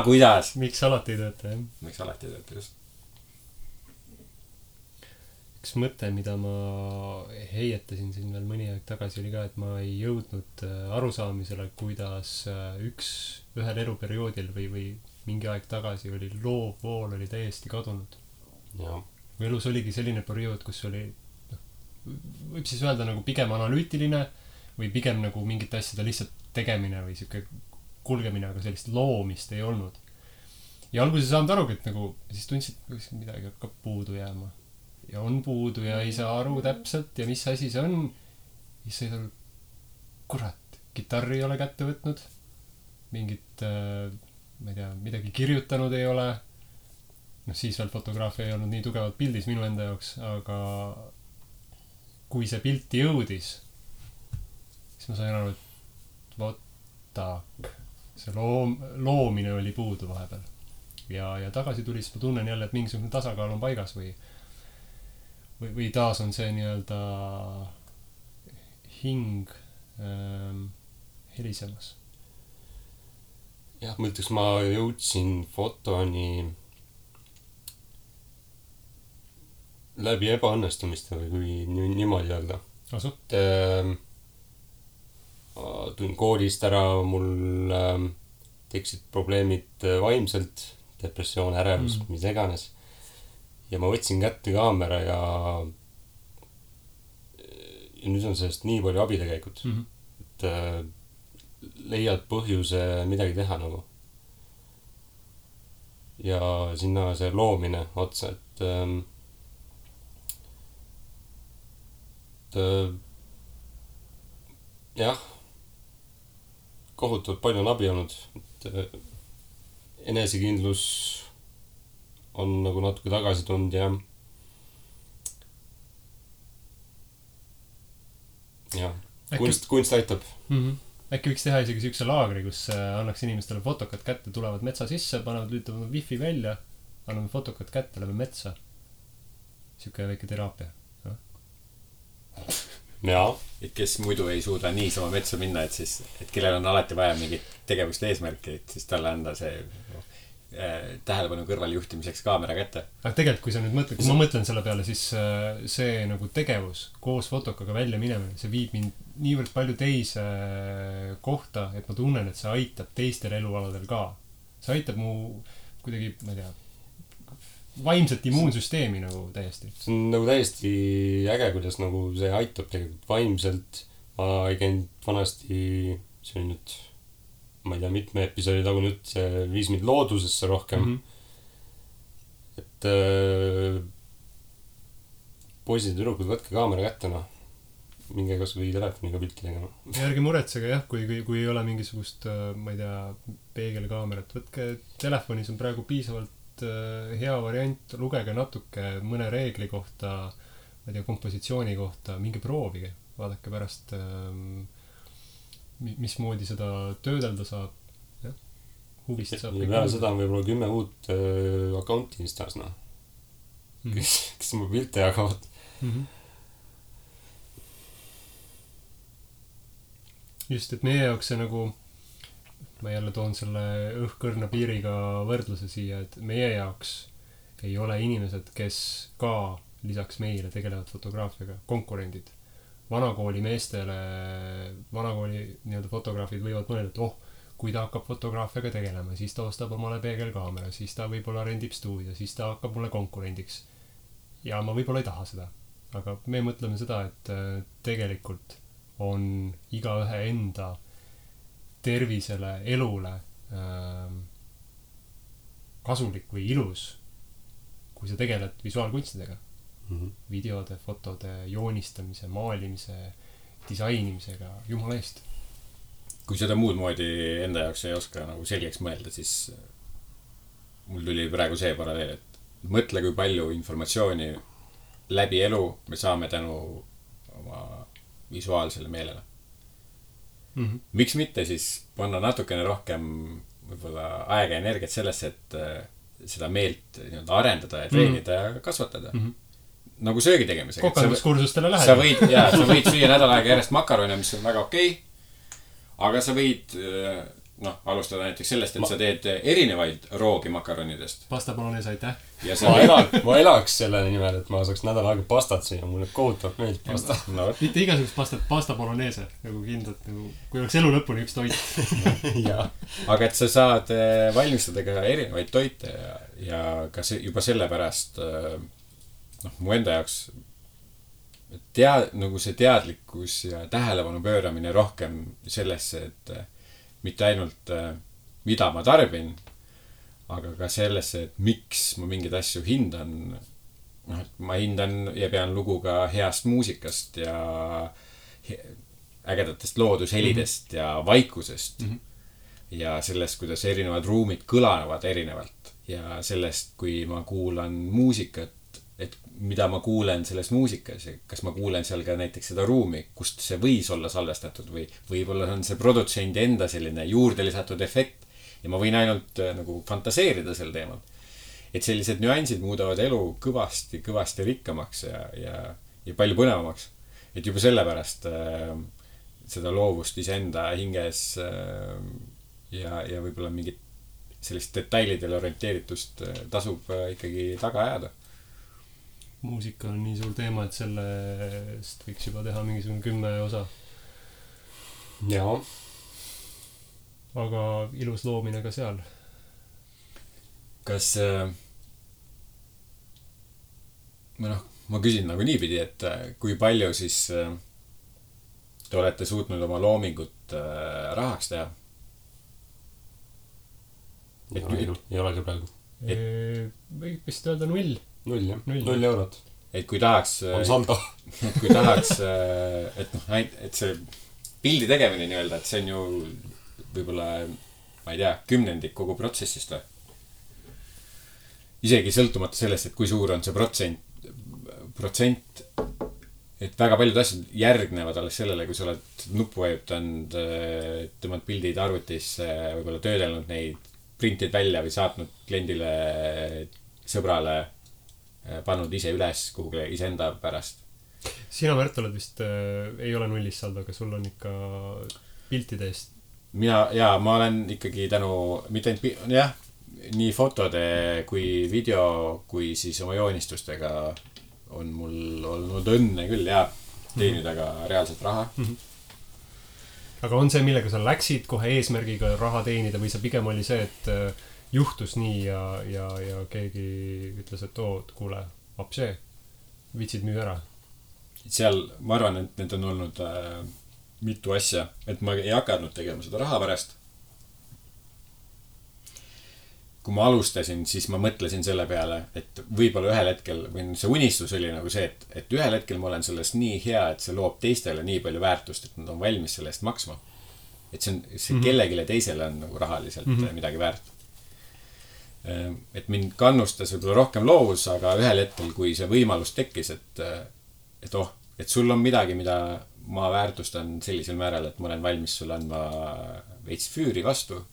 kuidas? Miks alati ei tööta, jah? Miks alati ei tööta, just. Üks mõte, mida ma heietasin siin veel mõni aeg tagasi, oli ka, et ma ei jõudnud arusaamisele, kuidas ühel eluperioodil või mingi aeg tagasi oli loovvool oli täiesti kadunud. Ja. Elus oligi selline periood, kus oli võib siis öelda nagu pigem analüütiline või pigem nagu mingite asjade lihtsalt tegemine või siuke kulgemine, aga sellist loomist ei olnud. Ja alguses saanud arugi, et nagu siis tundsid, et midagi hakkab puudu jääma. Ja on puudu ja ei saa aru täpselt ja mis asi see on. Siis sai tal, kurat, kitarri ei ole kätte võtnud. Mingit, ma ei tea, midagi kirjutanud ei ole. Siis veel fotograafia ei olnud nii tugevalt pildis minu enda jaoks, aga kui see pilti jõudis, siis ma sain aru, et võtak, see loomine oli puudu vahepeal. Ja tagasi tuli, siis ma tunnen jälle, et mingisugune tasakaal on paigas või taas on see nii-öelda hing helisemas. Jah, ma ütleks, ma jõudsin fotoni läbi ebaõnnestumiste või kui niimoodi öelda. Tulin koolist ära, mul tekkisid probleemid vaimselt, depressioon, ärevus, mis iganes. Ja ma võtsin kätte kaamera ja nüüd on sellest nii palju abi tegelikult. Et leiad põhjuse midagi teha nagu. Ja sinna see loomine otsa, et jah, kohutavalt palju on abi olnud, et enesekindlus on nagu natuke tagasi tulnud ja kunst aitab. Äkki võiks teha isegi siukse laagri, kus annaks inimestele fotokad kätte, tulevad metsa sisse, panevad, lülitavad wifi välja, anname fotokad kätte, läbi metsa. Siuke väike teraapia. Ja. Et kes muidu ei suuda niisama metsa minna, et kellel on alati vaja mingit tegevuste eesmärki, et siis talle anda see tähelepanu kõrval juhtimiseks kaamera kätte. Aga tegelikult, kui sa nüüd mõtled, kui ma mõtlen selle peale, siis see nagu tegevus koos fotokaga välja minemine, see viib mind niivõrd palju teise kohta, et ma tunnen, et see aitab teistel elualadel ka. See aitab mu kuidagi, ma ei tea, vaimset immuunsüsteemi nagu täiesti. See on nagu täiesti äge, kuidas nagu see aitab tegelikult vaimselt. Ma ei käinud vanasti, see oli nüüd, ma ei tea, mitme episoodi tagu nüüd, see viis mind loodusesse rohkem. Et poisid ja tüdrukud, võtke kaamera kätte, noh. Minge kas või telefoniga pilti tegema. Ärge muretsege jah, kui ei ole mingisugust, ma ei tea, peegelkaamerat. Võtke telefonis on praegu piisavalt hea variant, lugege natuke mõne reegli kohta, ma ei tea, kompositsiooni kohta, minge proovige. Vaadake pärast, mismoodi seda töödelda saab. Jah, huvist saab. Ja peale seda on võib-olla 10 uut accounti Instas, noh. Kes mu pilte jagavad. Just, et meie jaoks see nagu, ma jälle toon selle õhkõrna piiriga võrdluse siia, et meie jaoks ei ole inimesed, kes ka lisaks meile tegelevad fotograafiaga, konkurendid. Vanakooli meestele, vanakooli nii-öelda fotograafid võivad mõelda, et kui ta hakkab fotograafiaga tegelema, siis ta ostab omale peegelkaamera, siis ta võib-olla rendib stuudio, siis ta hakkab mulle konkurendiks. Ja ma võib-olla ei taha seda. Aga me mõtleme seda, et tegelikult on igaühe enda tervisele, elule kasulik või ilus, kui sa tegeled visuaalkunstidega. Videode, fotode, joonistamise, maalimise, disainimisega, jumala eest. Kui seda muud moodi enda jaoks ei oska nagu selgeks mõelda, siis mul tuli praegu see paralleel, et mõtle, kui palju informatsiooni läbi elu me saame tänu oma visuaalsele meelele. Miks mitte siis panna natukene rohkem võib-olla aega ja energiat sellesse, et seda meelt nii-öelda arendada ja treenida ja kasvatada. Nagu söögi tegemisega. Kokanduskursustele lähed. Sa võid süüa nädal aega järjest makarone, mis on väga okei. Aga sa võid alustada näiteks sellest, et sa teed erinevaid roogi makaronidest. Pasta bolognese, aitäh. Ma elaks selle nimel, et ma saaks nädal aega pastat siia. Mulle kohutavalt meeldib pasta. Mitte igasugust pastat, pasta bolognese. Nagu kindlalt, kui oleks elu lõpuni üks toit. Aga et sa saad valmistada ka erinevaid toite ja ka juba sellepärast mu enda jaoks nagu see teadlikkus ja tähelepanu pööramine rohkem sellesse, et mitte ainult mida ma tarbin, aga ka sellesse, et miks ma mingeid asju hindan. Et ma hindan ja pean lugu ka heast muusikast ja ägedatest loodushelidest ja vaikusest. Ja sellest, kuidas erinevad ruumid kõlanevad erinevalt. Ja sellest, kui ma kuulan muusikat, et mida ma kuulen selles muusikas ja kas ma kuulen seal ka näiteks seda ruumi, kust see võis olla salvestatud või võib-olla on see produtsendi enda selline juurde lisatud efekt ja ma võin ainult nagu fantaseerida sel teemal. Et sellised nüansid muudavad elu kõvasti rikkamaks ja palju põnevamaks. Et juba sellepärast seda loovust iseenda hinges ja võib-olla mingit sellist detailidele orienteeritust tasub ikkagi taga ajada. Muusika on nii suur teema, et sellest võiks juba teha mingisugune 10 osa. Jaa. Aga ilus loomine ka seal. Kas ma küsin nagu niipidi, et kui palju siis te olete suutnud oma loomingut rahaks teha? Ei ole ka praegu. Võib vist öelda 0. 0 eurot. Et kui tahaks on saldo. Et kui tahaks et see pildi tegemine nii-öelda, et see on ju võib-olla, ma ei tea, 10% kogu protsessist või? Isegi sõltumata sellest, et kui suur on see protsent, et väga paljud asjad järgnevad alles sellele, kui sa oled nuppu vajutanud, tõmmad pildid arvutisse, võib-olla töödelnud neid, printid välja või saatnud kliendile, sõbrale, pannud ise üles kuhugi iseenda pärast. Sina, Märt, oled vist ei ole 0 saldo, aga sul on ikka piltide eest. Ma olen ikkagi mitte ainult nii fotode kui video, kui siis oma joonistustega on mul olnud õnne küll teenida ka reaalselt raha. Aga on see, millega sa läksid kohe eesmärgiga raha teenida või sa pigem oli see, et juhtus nii ja keegi ütles, et kuule, apsee, vitsid müü ära? Seal, ma arvan, et need on olnud mitu asja, et ma ei hakanud tegema seda raha pärast. kui ma alustasin, siis ma mõtlesin selle peale, et võib-olla ühel hetkel, või see unistus oli nagu see, et ühel hetkel ma olen sellest nii hea, et see loob teistele nii palju väärtust, et nad on valmis selle eest maksma. Et see kellegile teisele on nagu rahaliselt midagi väärt. Et mind kannustas võib-olla rohkem loovus, aga ühel hetkel, kui see võimalus tekkis, et sul on midagi, mida ma väärtustan sellisel määral, et ma olen valmis sulle andma veits füüri vastu.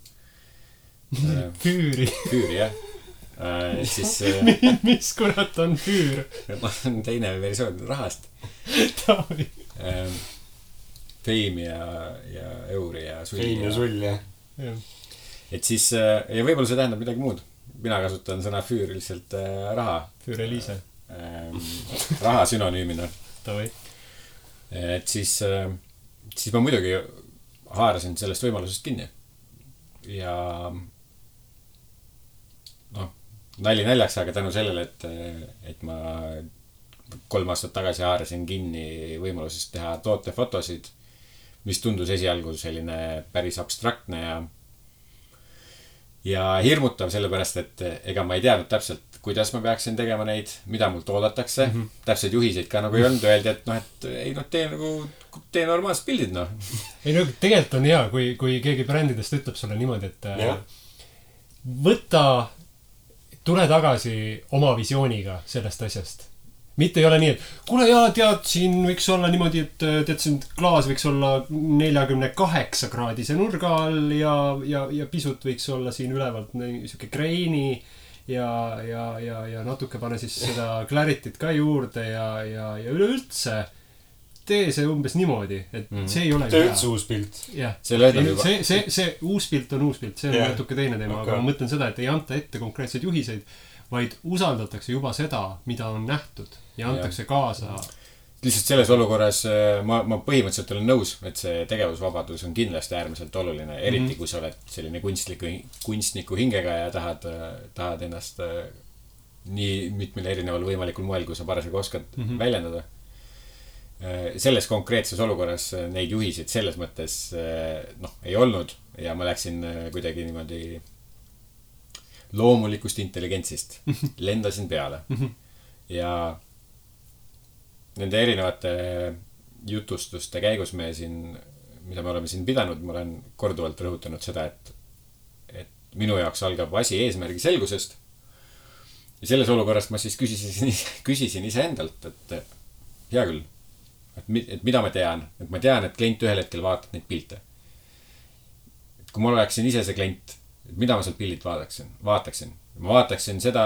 Füüri, jah. Siis mis kurat on füür? Teine versioon rahast. Feim ja euri ja sulli. Feim ja sull, jah. Et siis, ja võib-olla see tähendab midagi muud. Mina kasutan sõna füür lihtsalt raha. Füür Eliise. Raha sünonüümina. Et siis ma muidugi haarasin sellest võimalusest kinni. Ja nali naljaks, aga tänu sellele, et ma 3 aastat tagasi haarasin kinni võimalusest teha tootefotosid, mis tundus esialgu selline päris abstraktne ja hirmutav, sellepärast, et ega ma ei teadnud täpselt, kuidas ma peaksin tegema neid, mida mult oodatakse. Täpselt juhiseid ka nagu ei olnud, öeldi, et tee normaalsed pildid, Ei tegelikult on hea, kui keegi brändidest ütleb sulle niimoodi, et tule tagasi oma visiooniga sellest asjast. Mitte ei ole nii, et kuule tead, siin võiks olla niimoodi, et tead, siin klaas võiks olla 48 kraadise nurga all ja pisut võiks olla siin ülevalt siuke greini ja natuke pane siis seda clarity't ka juurde ja üleüldse tee see umbes niimoodi, et see ei ole see üldse uus pilt. See uus pilt on uus pilt, see on natuke teine teema, aga ma mõtlen seda, et ei anta ette konkreetseid juhiseid, vaid usaldatakse juba seda, mida on nähtud ja antakse kaasa. Lihtsalt selles olukorras ma põhimõtteliselt olen nõus, et see tegevusvabadus on kindlasti äärmiselt oluline, eriti kui sa oled selline kunstniku hingega ja tahad ennast nii mitmel erineval võimalikul moel, kui sa parasjagu oskad väljendada. Selles konkreetses olukorras neid juhiseid selles mõttes ei olnud ja ma läksin kuidagi niimoodi loomulikust intelligentsist. Lendasin peale. Ja nende erinevate jutustuste käigus mida me oleme siin pidanud, ma olen korduvalt rõhutanud seda, et minu jaoks algab asi eesmärgi selgusest. Ja selles olukorrast ma siis küsisin iseendalt, et hea küll, et mida ma tean, et klient ühel hetkel vaatab neid pilte. Et kui ma oleksin ise see klient, mida ma sealt pildid vaataksin. Ma vaataksin seda,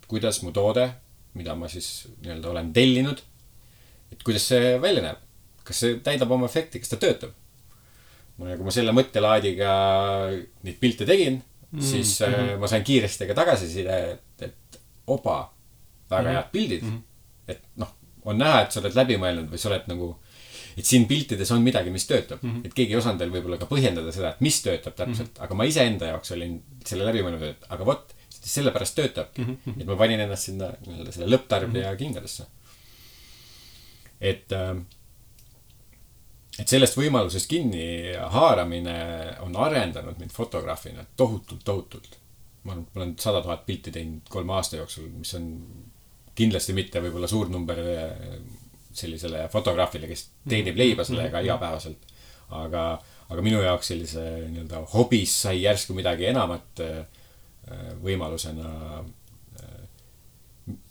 kuidas mu toode, mida ma siis olen tellinud, et kuidas see välja näeb. Kas see täidab oma efekti, kas ta töötab. Kui ma selle mõttelaadiga neid pilte tegin, siis ma sain kiiresti ka tagasiside, et opa, väga head pildid. Et on näha, et sa oled läbi mõelnud või sa oled nagu, et siin piltides on midagi, mis töötab. Et keegi ei osanud veel võib-olla ka põhjendada seda, et mis töötab täpselt. Aga ma ise enda jaoks olin selle läbi mõelnud, et aga vot, sellepärast töötabki. Et ma panin ennast sinna selle lõpptarbija kingadesse. Et sellest võimalusest kinni haaramine on arendanud mind fotograafina tohutult. Ma olen 100 000 pilti teinud 3 aasta jooksul, mis on kindlasti mitte võib-olla suur number sellisele fotograafile, kes teenib leiba sellega igapäevaselt. Aga minu jaoks sellise hobis sai järsku midagi enamat võimalusena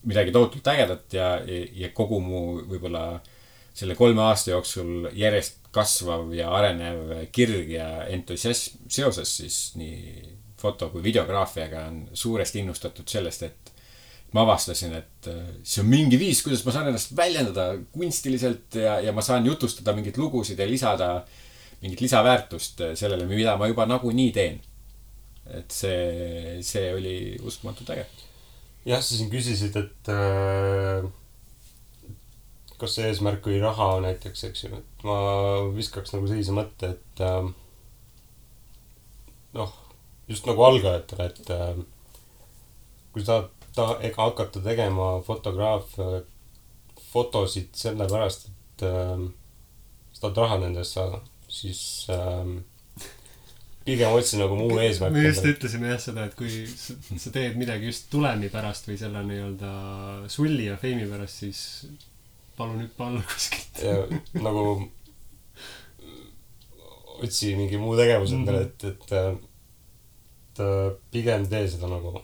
midagi tohutult ägedat ja kogu mu võib-olla selle 3 aasta jooksul järjest kasvav ja arenev kirg ja entusiasm seoses siis nii foto- kui videograafiaga on suuresti innustatud sellest, et ma avastasin, et see on mingi viis, kuidas ma saan ennast väljendada kunstiliselt ja ma saan jutustada mingit lugusid ja lisada mingit lisaväärtust sellele, mida ma juba nagu nii teen. Et see oli uskumatult äge. Jah, sa siin küsisid, et kas see eesmärk või raha näiteks, eks ju. Et ma viskaks nagu sellise mõtte, et just nagu algajatele, et kui sa ega hakata tegema fotosid sellepärast, et sa tahad raha nendest saada, siis pigem otsin nagu muu eesmärk. me just ütlesime jah seda, et kui sa teed midagi just tulemi pärast või selle nii-öelda sulli ja feimi pärast, siis palun hüppa alla kuskilt. Ja nagu otsi mingi muu tegevus endale, et pigem tee seda nagu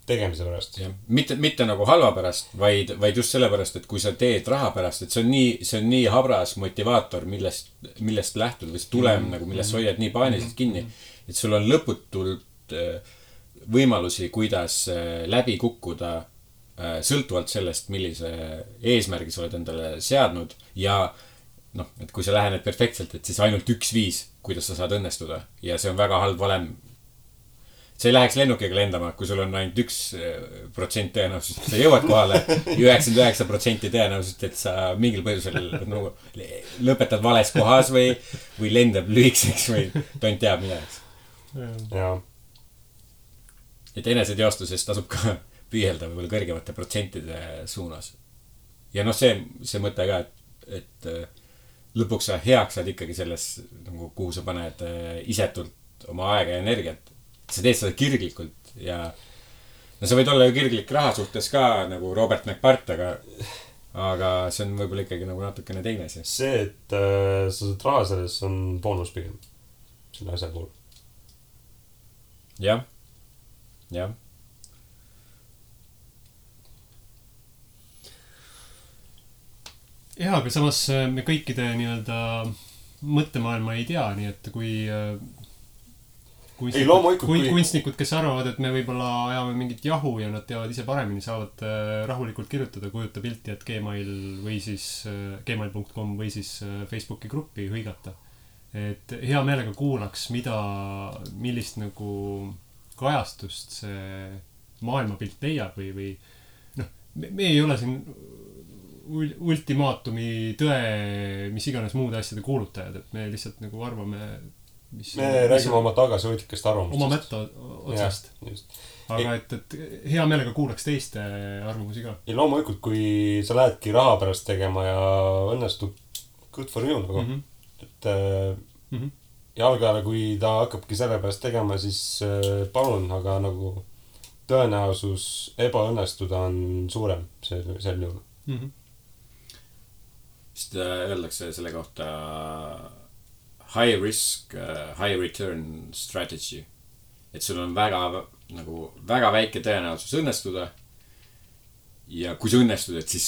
tegemise pärast. Mitte nagu halva pärast, vaid just selle pärast, et kui sa teed raha pärast, et see on nii habras motivaator, millest lähtud või see tulem nagu, millest sa hoiad nii paaniliselt kinni, et sul on lõputult võimalusi, kuidas läbi kukkuda sõltuvalt sellest, millise eesmärgi sa oled endale seadnud ja noh, et kui sa lähened perfektselt, et siis ainult üks viis, kuidas sa saad õnnestuda ja see on väga halb valem. See ei läheks lennukiga lendama, kui sul on ainult 1% tõenäosus, et sa jõuad kohale 99% tõenäosus, et sa mingil põhjusel nagu lõpetad vales kohas või lendab lühikseks või tont teab midagi. Jaa. Et eneseteostuses tasub ka püüelda võib-olla kõrgemate protsentide suunas. Ja noh, see mõte ka, et lõpuks sa heaks saad ikkagi selles, nagu, kuhu sa paned isetult oma aega ja energiat. Sa teed seda kirglikult ja no sa võid olla ju kirglik raha suhtes ka nagu Robert McPart, aga see on võib-olla ikkagi nagu natukene teine asi. See, et sa saad raha selles on boonus pigem selle asja puhul. Jah. Jaa, aga samas me kõikide nii-öelda mõttemaailma ei tea, nii et kui kunstnikud, kes arvavad, et me võib-olla ajame mingit jahu ja nad teavad ise paremini, saavad rahulikult kirjutada, kujuta pilti, et Gmail või siis gmail.com või siis Facebooki gruppi hõigata. Et hea meelega kuulaks, millist nagu kajastust see maailmapilt leiab või noh, me ei ole siin ultimaatumi tõe, mis iganes muude asjade kuulutajad, et me lihtsalt nagu arvame me räägime oma tagasihoidlikest arvamustest. Oma mätta otsast. Aga et hea meelega kuulaks teiste arvamusi ka. Ja loomulikult, kui sa lähedki raha pärast tegema ja õnnestub good for you nagu. Et jalgajale, kui ta hakkabki selle pärast tegema, siis palun, aga nagu tõenäosus ebaõnnestuda on suurem sel juhul. Sest öeldakse selle kohta high risk, high return strategy. Et sul on väga väike tõenäosus õnnestuda. Ja kui sa õnnestud, et siis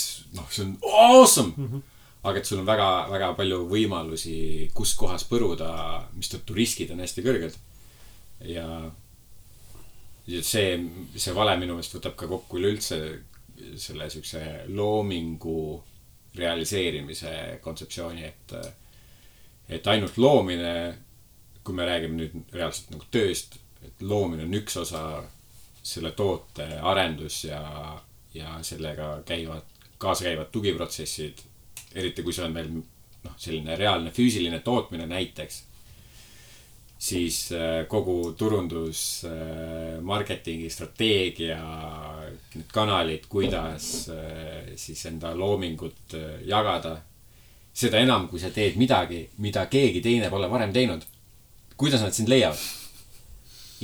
see on awesome! Aga et sul on väga palju võimalusi, kus kohas põruda, mis tõttu riskid on hästi kõrged. Ja see vale minu meelest võtab ka kokku üleüldse selle sükse loomingu realiseerimise kontseptsiooni, et ainult loomine, kui me räägime nüüd reaalselt nagu tööst, et loomine on üks osa selle toote arendus ja sellega kaasa käivad tugiprotsessid, eriti kui see on veel selline reaalne füüsiline tootmine näiteks, siis kogu turundus, marketingi, strateegia, need kanalid, kuidas siis enda loomingut jagada. Seda enam, kui sa teed midagi, mida keegi teine pole varem teinud. Kuidas nad sind leiavad?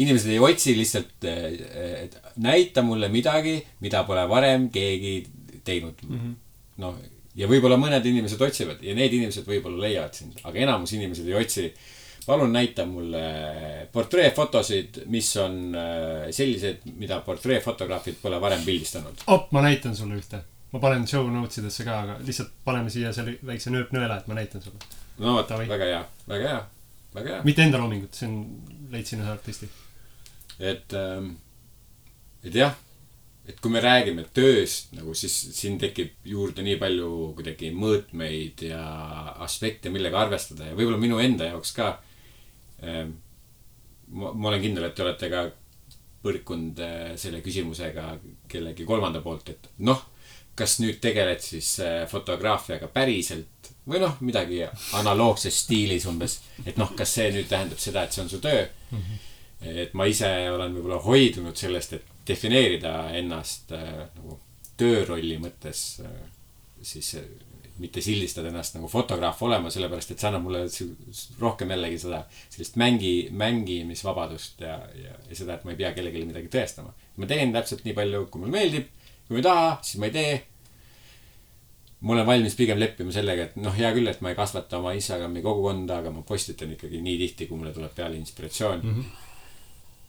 Inimesed ei otsi lihtsalt, et näita mulle midagi, mida pole varem keegi teinud. No, ja võib-olla mõned inimesed otsivad ja need inimesed võib-olla leiavad sind, aga enamus inimesed ei otsi. Palun näita mulle portreefotosid, mis on sellised, mida portreefotograafid pole varem pildistanud. Ma näitan sulle ühte. Ma panen show notesidesse ka, aga lihtsalt paneme siia selle väikse nööpnõela, et ma näitan sulle. No, väga hea. Mitte enda loomingut, see on leidsin ühe artisti. Et jah, et kui me räägime tööst, nagu siis siin tekib juurde nii palju kuidagi mõõtmeid ja aspekte, millega arvestada ja võib-olla minu enda jaoks ka. Ma olen kindel, et te olete ka põrkunud selle küsimusega kellegi kolmanda poolt, et kas nüüd tegeled siis fotograafiaga päriselt või midagi analoogses stiilis umbes, et kas see nüüd tähendab seda, et see on su töö. Et ma ise olen võib-olla hoidunud sellest, et defineerida ennast nagu töörolli mõttes siis mitte sildistada ennast nagu fotograaf olema, sellepärast et see annab mulle rohkem jällegi seda sellist mängimisvabadust ja seda, et ma ei pea kellelegi midagi tõestama. Ma teen täpselt nii palju, kui mulle meeldib, kui ma ei taha, siis ma ei tee. Ma olen valmis pigem leppima sellega, et hea küll, et ma ei kasvata oma Instagrami kogukonda, aga ma postitan ikkagi nii tihti, kui mulle tuleb peale inspiratsioon.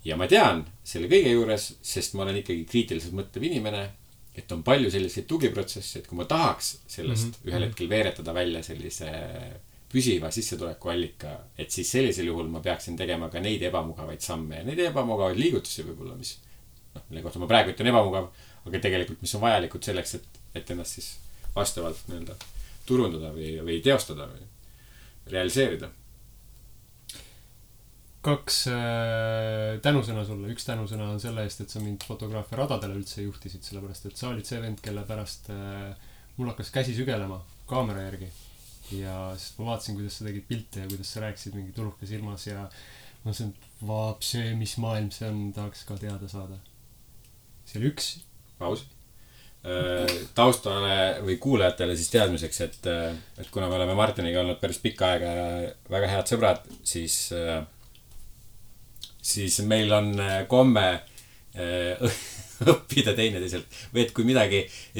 Ja ma tean selle kõige juures, sest ma olen ikkagi kriitiliselt mõtlev inimene, et on palju selliseid tugiprotsesse, et kui ma tahaks sellest ühel hetkel veeretada välja sellise püsiva sissetuleku allika, et siis sellisel juhul ma peaksin tegema ka neid ebamugavaid samme ja neid ebamugavaid liigutusi võib-olla, mis mille kohta ma praegu ütlen ebamugav, aga tegelikult mis on vajalikud selleks, et ennast siis vastavalt nii-öelda turundada või teostada või realiseerida. 2 tänusõna sulle. Üks tänusõna on selle eest, et sa mind fotograafia radadele üldse juhtisid, sellepärast et sa olid see vend, kelle pärast mul hakkas käsi sügelema kaamera järgi. Ja sest ma vaatasin, kuidas sa tegid pilte ja kuidas sa rääkisid mingi tuluke silmas ja ma mõtlesin, et vaap see, mis maailm see on, tahaks ka teada saada. See oli üks. Paus. Taustale või kuulajatele siis teadmiseks, et kuna me oleme Martiniga olnud päris pikka aega ja väga head sõbrad, siis meil on komme õppida teineteiselt. Või et kui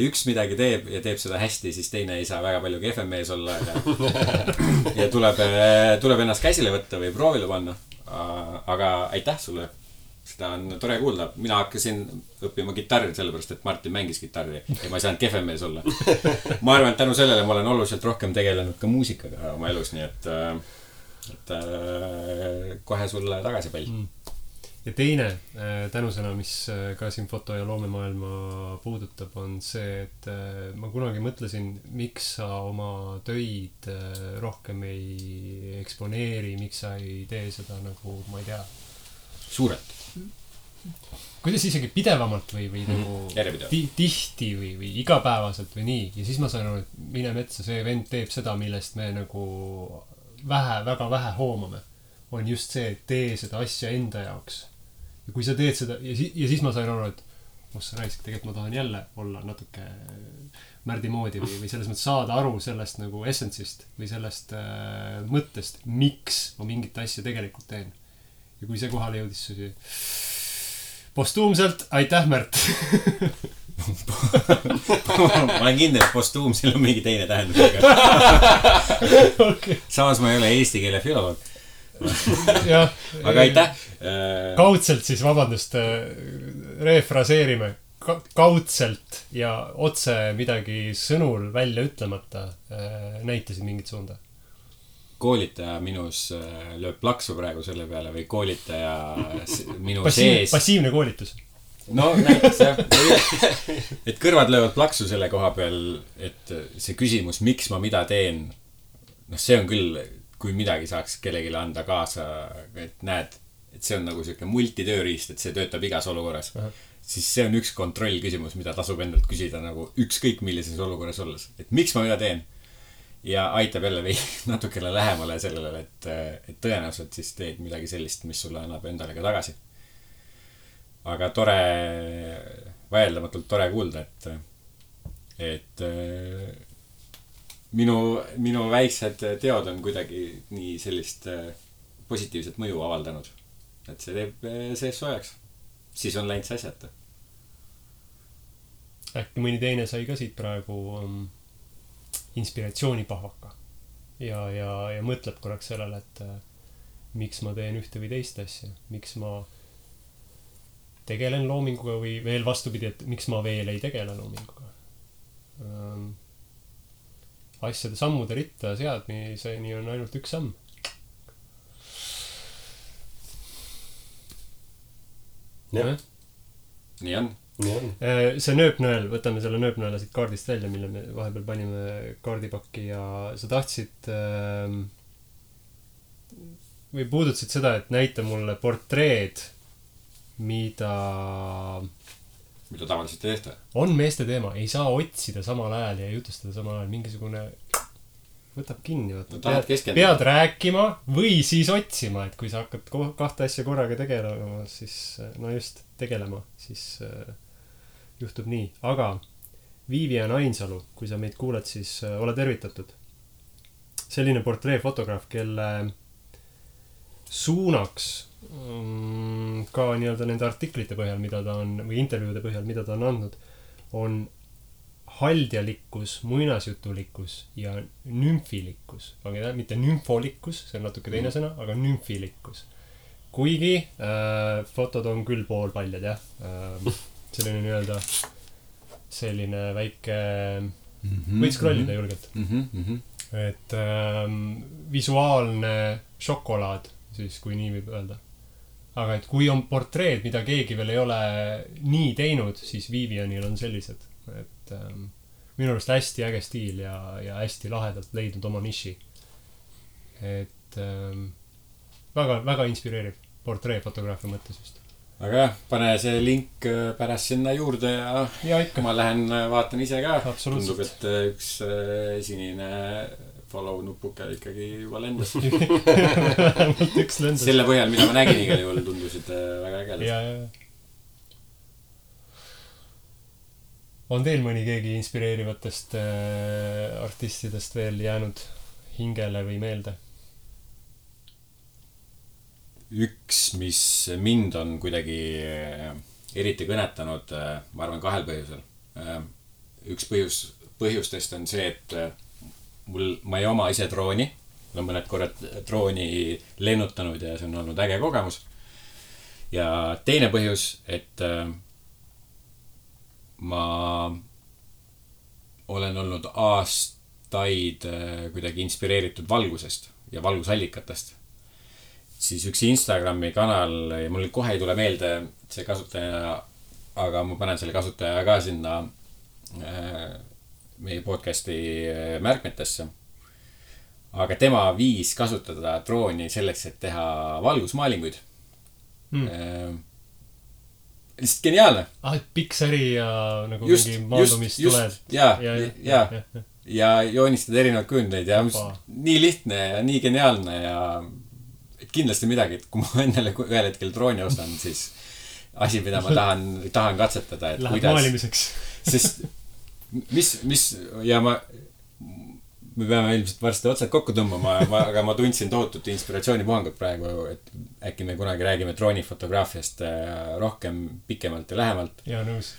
üks midagi teeb ja teeb seda hästi, siis teine ei saa väga palju kehvem mees olla ja tuleb ennast käsile võtta või proovile panna. Aga aitäh sulle. Seda on tore kuulda. Mina hakkasin õppima kitarri sellepärast, et Martin mängis kitarri ja ma ei saanud kehvem mees olla. Ma arvan, et tänu sellele ma olen oluliselt rohkem tegelenud ka muusikaga oma elus, nii et kohe sulle tagasi pall. Ja teine tänusõna, mis ka siin foto- ja loomemaailma puudutab, on see, et ma kunagi mõtlesin, miks sa oma töid rohkem ei eksponeeri, miks sa ei tee seda nagu, ma ei tea, suurelt. Kuidas isegi pidevamalt või nagu tihti või igapäevaselt või nii. Ja siis ma sain aru, et mine metsa, see vend teeb seda, millest me nagu väga vähe hoomame. On just see, et tee seda asja enda jaoks. Ja kui sa teed seda, ja siis ma sain aru, et sa raisk, tegelikult ma tahan jälle olla natuke Märdi moodi või selles mõttes saada aru sellest nagu essentsist või sellest mõttest, miks ma mingit asja tegelikult teen. Ja kui see kohale jõudis postuumselt, aitäh Märt! Ma olen kindel, et postuumsil on mingi teine tähendus. Okay. Samas ma ei ole eesti keele filoloog. Aga aitäh! Kaudselt siis, vabandust, refraseerime. Kaudselt ja otse midagi sõnul välja ütlemata näitasid mingit suunda. Koolitaja minus lööb plaksu praegu selle peale või koolitaja minu sees. Passiivne koolitus. No näiteks jah. Et kõrvad löövad plaksu selle koha peal, et see küsimus, miks ma mida teen, see on küll, kui midagi saaks kellegile anda kaasa, et näed, et see on nagu selline multitööriist, et see töötab igas olukorras. Siis see on üks kontroll küsimus, mida tasub endalt küsida nagu ükskõik millises olukorras olles. Et miks ma mida teen? Ja aitab jälle natukene lähemale sellele, et tõenäoliselt siis teed midagi sellist, mis sulle annab endale ka tagasi. Aga vaieldamatult tore kuulda, et minu väiksed teod on kuidagi nii sellist positiivset mõju avaldanud. Et see teeb sees soojaks. Siis on läinud see asjata. Äkki mõni teine sai ka siit praegu inspiratsioonipahvaka ja mõtleb korraks sellele, et miks ma teen ühte või teist asja, miks ma tegelen loominguga või veel vastupidi, et miks ma veel ei tegele loominguga. Asjade sammude ritta seadmiseni on ainult üks samm. Jah. Nii on. See nööpnõel, võtame selle nööpnõela siit kaardist välja, mille me vahepeal panime kaardipakki ja sa tahtsid või puudutasid seda, et näita mulle portreed, mida tavaliselt ei tehta. On meeste teema, ei saa otsida samal ajal ja jutustada samal ajal, mingisugune võtab kinni, pead rääkima või siis otsima, et kui sa hakkad kahte asja korraga tegelema, siis no just tegelema, siis juhtub nii. Aga Vivian Ainsalu, kui sa meid kuuled, siis ole tervitatud. Selline portreefotograaf, kelle suunaks ka nii-öelda nende artiklite põhjal, mida ta on, või intervjuude põhjal, mida ta on andnud, on haldjalikkus, muinasjutulikkus ja nümfilikkus. Mitte nümfolikkus, see on natuke teine sõna, aga nümfilikkus. Kuigi fotod on küll poolpaljad, jah. Selline nii-öelda selline väike võid scrollida julgelt. Et visuaalne šokolaad, siis kui nii võib öelda. Aga et kui on portreed, mida keegi veel ei ole nii teinud, siis Vivianil on sellised. Et minu arust hästi äge stiil ja hästi lahedalt leidnud oma niši. Et väga, väga inspireeriv portreefotograafia mõttes just. Aga jah, pane see link pärast sinna juurde ja ikka ma lähen vaatan ise ka. Tundub, et üks sinine follow nupuke ikkagi juba lendas. Selle põhjal, mida ma nägin igal juhul, tundusid väga ägedad. On teil mõni keegi inspireerivatest artistidest veel jäänud hingele või meelde? Üks, mis mind on kuidagi eriti kõnetanud, ma arvan 2 põhjusel. Üks põhjustest on see, et ma ei oma ise drooni. Ma olen mõned korrad drooni lennutanud ja see on olnud äge kogemus. Ja teine põhjus, et ma olen olnud aastaid kuidagi inspireeritud valgusest ja valgusallikatest. Siis üks Instagrami kanal, ja mul kohe ei tule meelde see kasutaja, aga ma panen selle kasutaja ka sinna meie podcasti märkmetesse. Aga tema viis kasutada drooni selleks, et teha valgusmaalinguid. Lihtsalt geniaalne. Pixari ja nagu mingi maandumist tuled. Ja joonistada erinevad kujundeid ja nii lihtne ja nii geniaalne ja kindlasti midagi, et kui ma endale ühel hetkel drooni ostan, siis asi, mida ma tahan katsetada, et läheb maalimiseks. Sest ja me peame ilmselt varsti otsad kokku tõmbama, aga ma tundsin tohutut inspiratsioonipuhangut praegu, et äkki me kunagi räägime droonifotograafiast rohkem, pikemalt ja lähemalt. Ja nõus.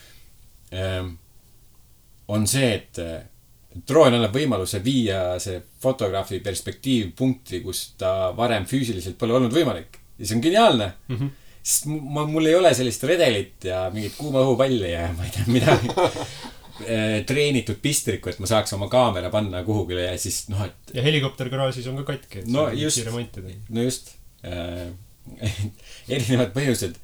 On see, et droon annab võimaluse viia see fotograafi perspektiiv punkti, kus ta varem füüsiliselt pole olnud võimalik. Ja see on geniaalne. Sest mul ei ole sellist redelit ja mingit kuuma õhupalli ja ma ei tea midagi treenitud pistrikku, et ma saaks oma kaamera panna kuhugile ja siis et... Ja helikopter garaažis on ka katki, et no just. Erinevad põhjused.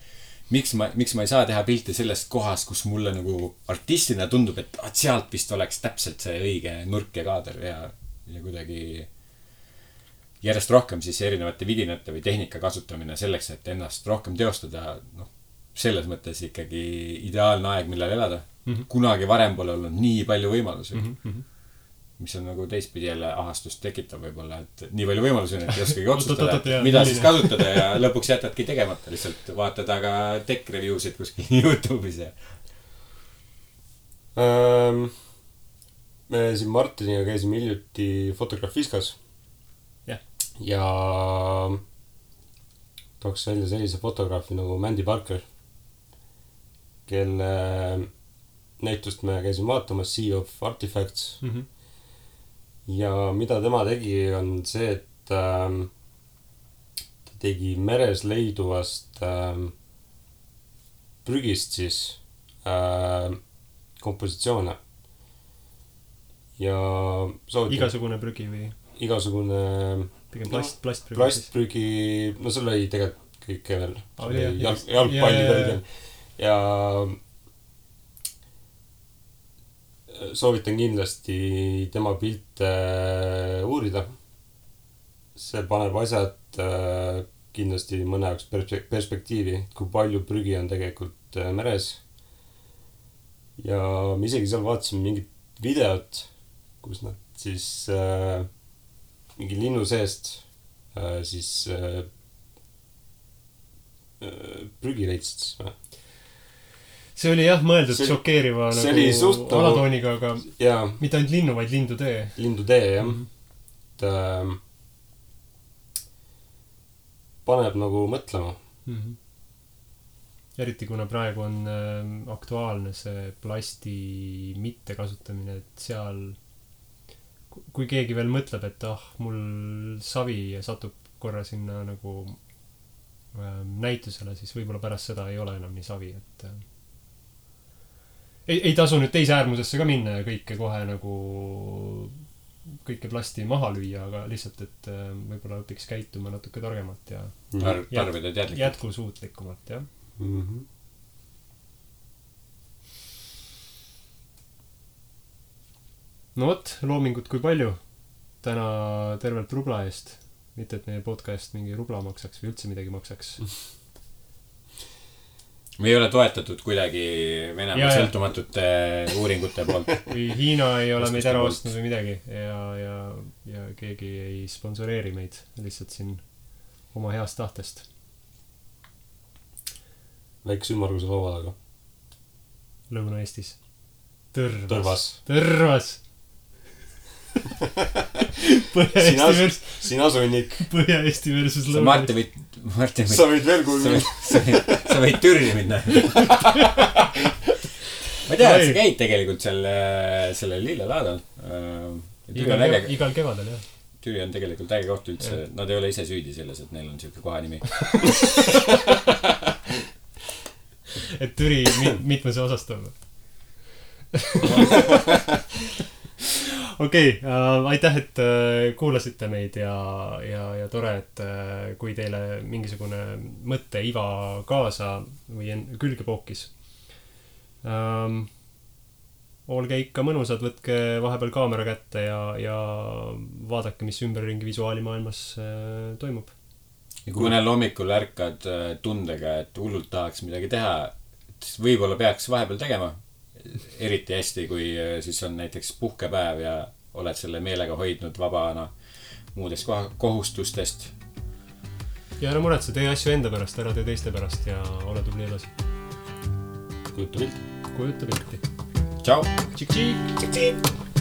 Miks ma ei saa teha pilti sellest kohast, kus mulle nagu artistina tundub, et sealt vist oleks täpselt see õige nurk ja kaader ja kuidagi järjest rohkem siis erinevate vidinate või tehnika kasutamine selleks, et ennast rohkem teostada. Selles mõttes ikkagi ideaalne aeg, millal elada. Kunagi varem pole olnud nii palju võimalusi. Mis on nagu teistpidi jälle ahastust tekitab võib-olla, et nii palju võimalusi on, et ei oskagi otsustada, mida siis kasutada ja lõpuks jätadki tegemata. Lihtsalt vaatad aga tech review'sid kuskil YouTube'is ja... Me siin Martiniga käisime hiljuti Fotografiskas. Ja tooks välja sellise fotograafi nagu Mandy Parker, kelle näitust me käisime vaatamas Sea of Artifacts. Ja mida tema tegi on see, et ta tegi meres leiduvast prügist siis kompositsioone. Ja igasugune prügi või? Igasugune pigem plastprügi. Plastprügi, no seal oli tegelikult kõike veel. Jalgpallid olid. Ja soovitan kindlasti tema pilte uurida. See paneb asjad kindlasti mõne jaoks perspektiivi, kui palju prügi on tegelikult meres. Ja me isegi seal vaatasime mingit videot, kus nad siis mingi linnu seest siis prügi leidsid siis või? see oli jah mõeldud šokeeriva nagu alatooniga, aga mitte ainult linnu, vaid lindutee. Lindutee, jah. Paneb nagu mõtlema. Eriti kuna praegu on aktuaalne see plasti mitte kasutamine, et seal kui keegi veel mõtleb, et mul savi satub korra sinna nagu näitusele, siis võib-olla pärast seda ei ole enam nii savi, et ei tasu nüüd teise äärmusesse ka minna ja kõike kohe nagu kõike plasti maha lüüa, aga lihtsalt, et võib-olla õpiks käituma natuke targemalt ja tarbida teadlikult. Jätkusuutlikumalt, jah. No vot, loomingut kui palju täna tervelt rubla eest. Mitte, et meie podcast mingi rubla maksaks või üldse midagi maksaks. Me ei ole toetatud kuidagi Venemaa sõltumatute uuringute poolt. Või Hiina ei ole meid ära ostnud või midagi ja keegi ei sponsoreeri meid lihtsalt siin oma heast tahtest. Väikse ümmarguse laua taga. Lõuna-Eestis. Tõrvas. Sina sunnik. Põhja-Eesti versus Lõuna-Eesti. Martin, sa võid veel kuulda. Sa võid Türi minna. Ma tean, et sa käid tegelikult selle lillelaadal. Igal kevadel, jah. Türi on tegelikult äge koht üldse. Nad ei ole ise süüdi selles, et neil on siuke kohanimi. Et Türi mitmes osastab. Okei, aitäh, et kuulasite meid ja tore, et kui teile mingisugune mõtte iva kaasa või külge pookis. Olge ikka mõnusad, võtke vahepeal kaamera kätte ja vaadake, mis ümberringi visuaalimaailmas toimub. Ja kui mõnel hommikul ärkad tundega, et hullult tahaks midagi teha, siis võib-olla peaks vahepeal tegema. Eriti hästi, kui siis on näiteks puhkepäev ja oled selle meelega hoidnud vabana muudest kohustustest. Ja ära muretse, tee asju enda pärast, ära tee teiste pärast ja ole tubli edasi. Kujuta pilti. Kujuta pilti. Tšau. Tšik-tšik.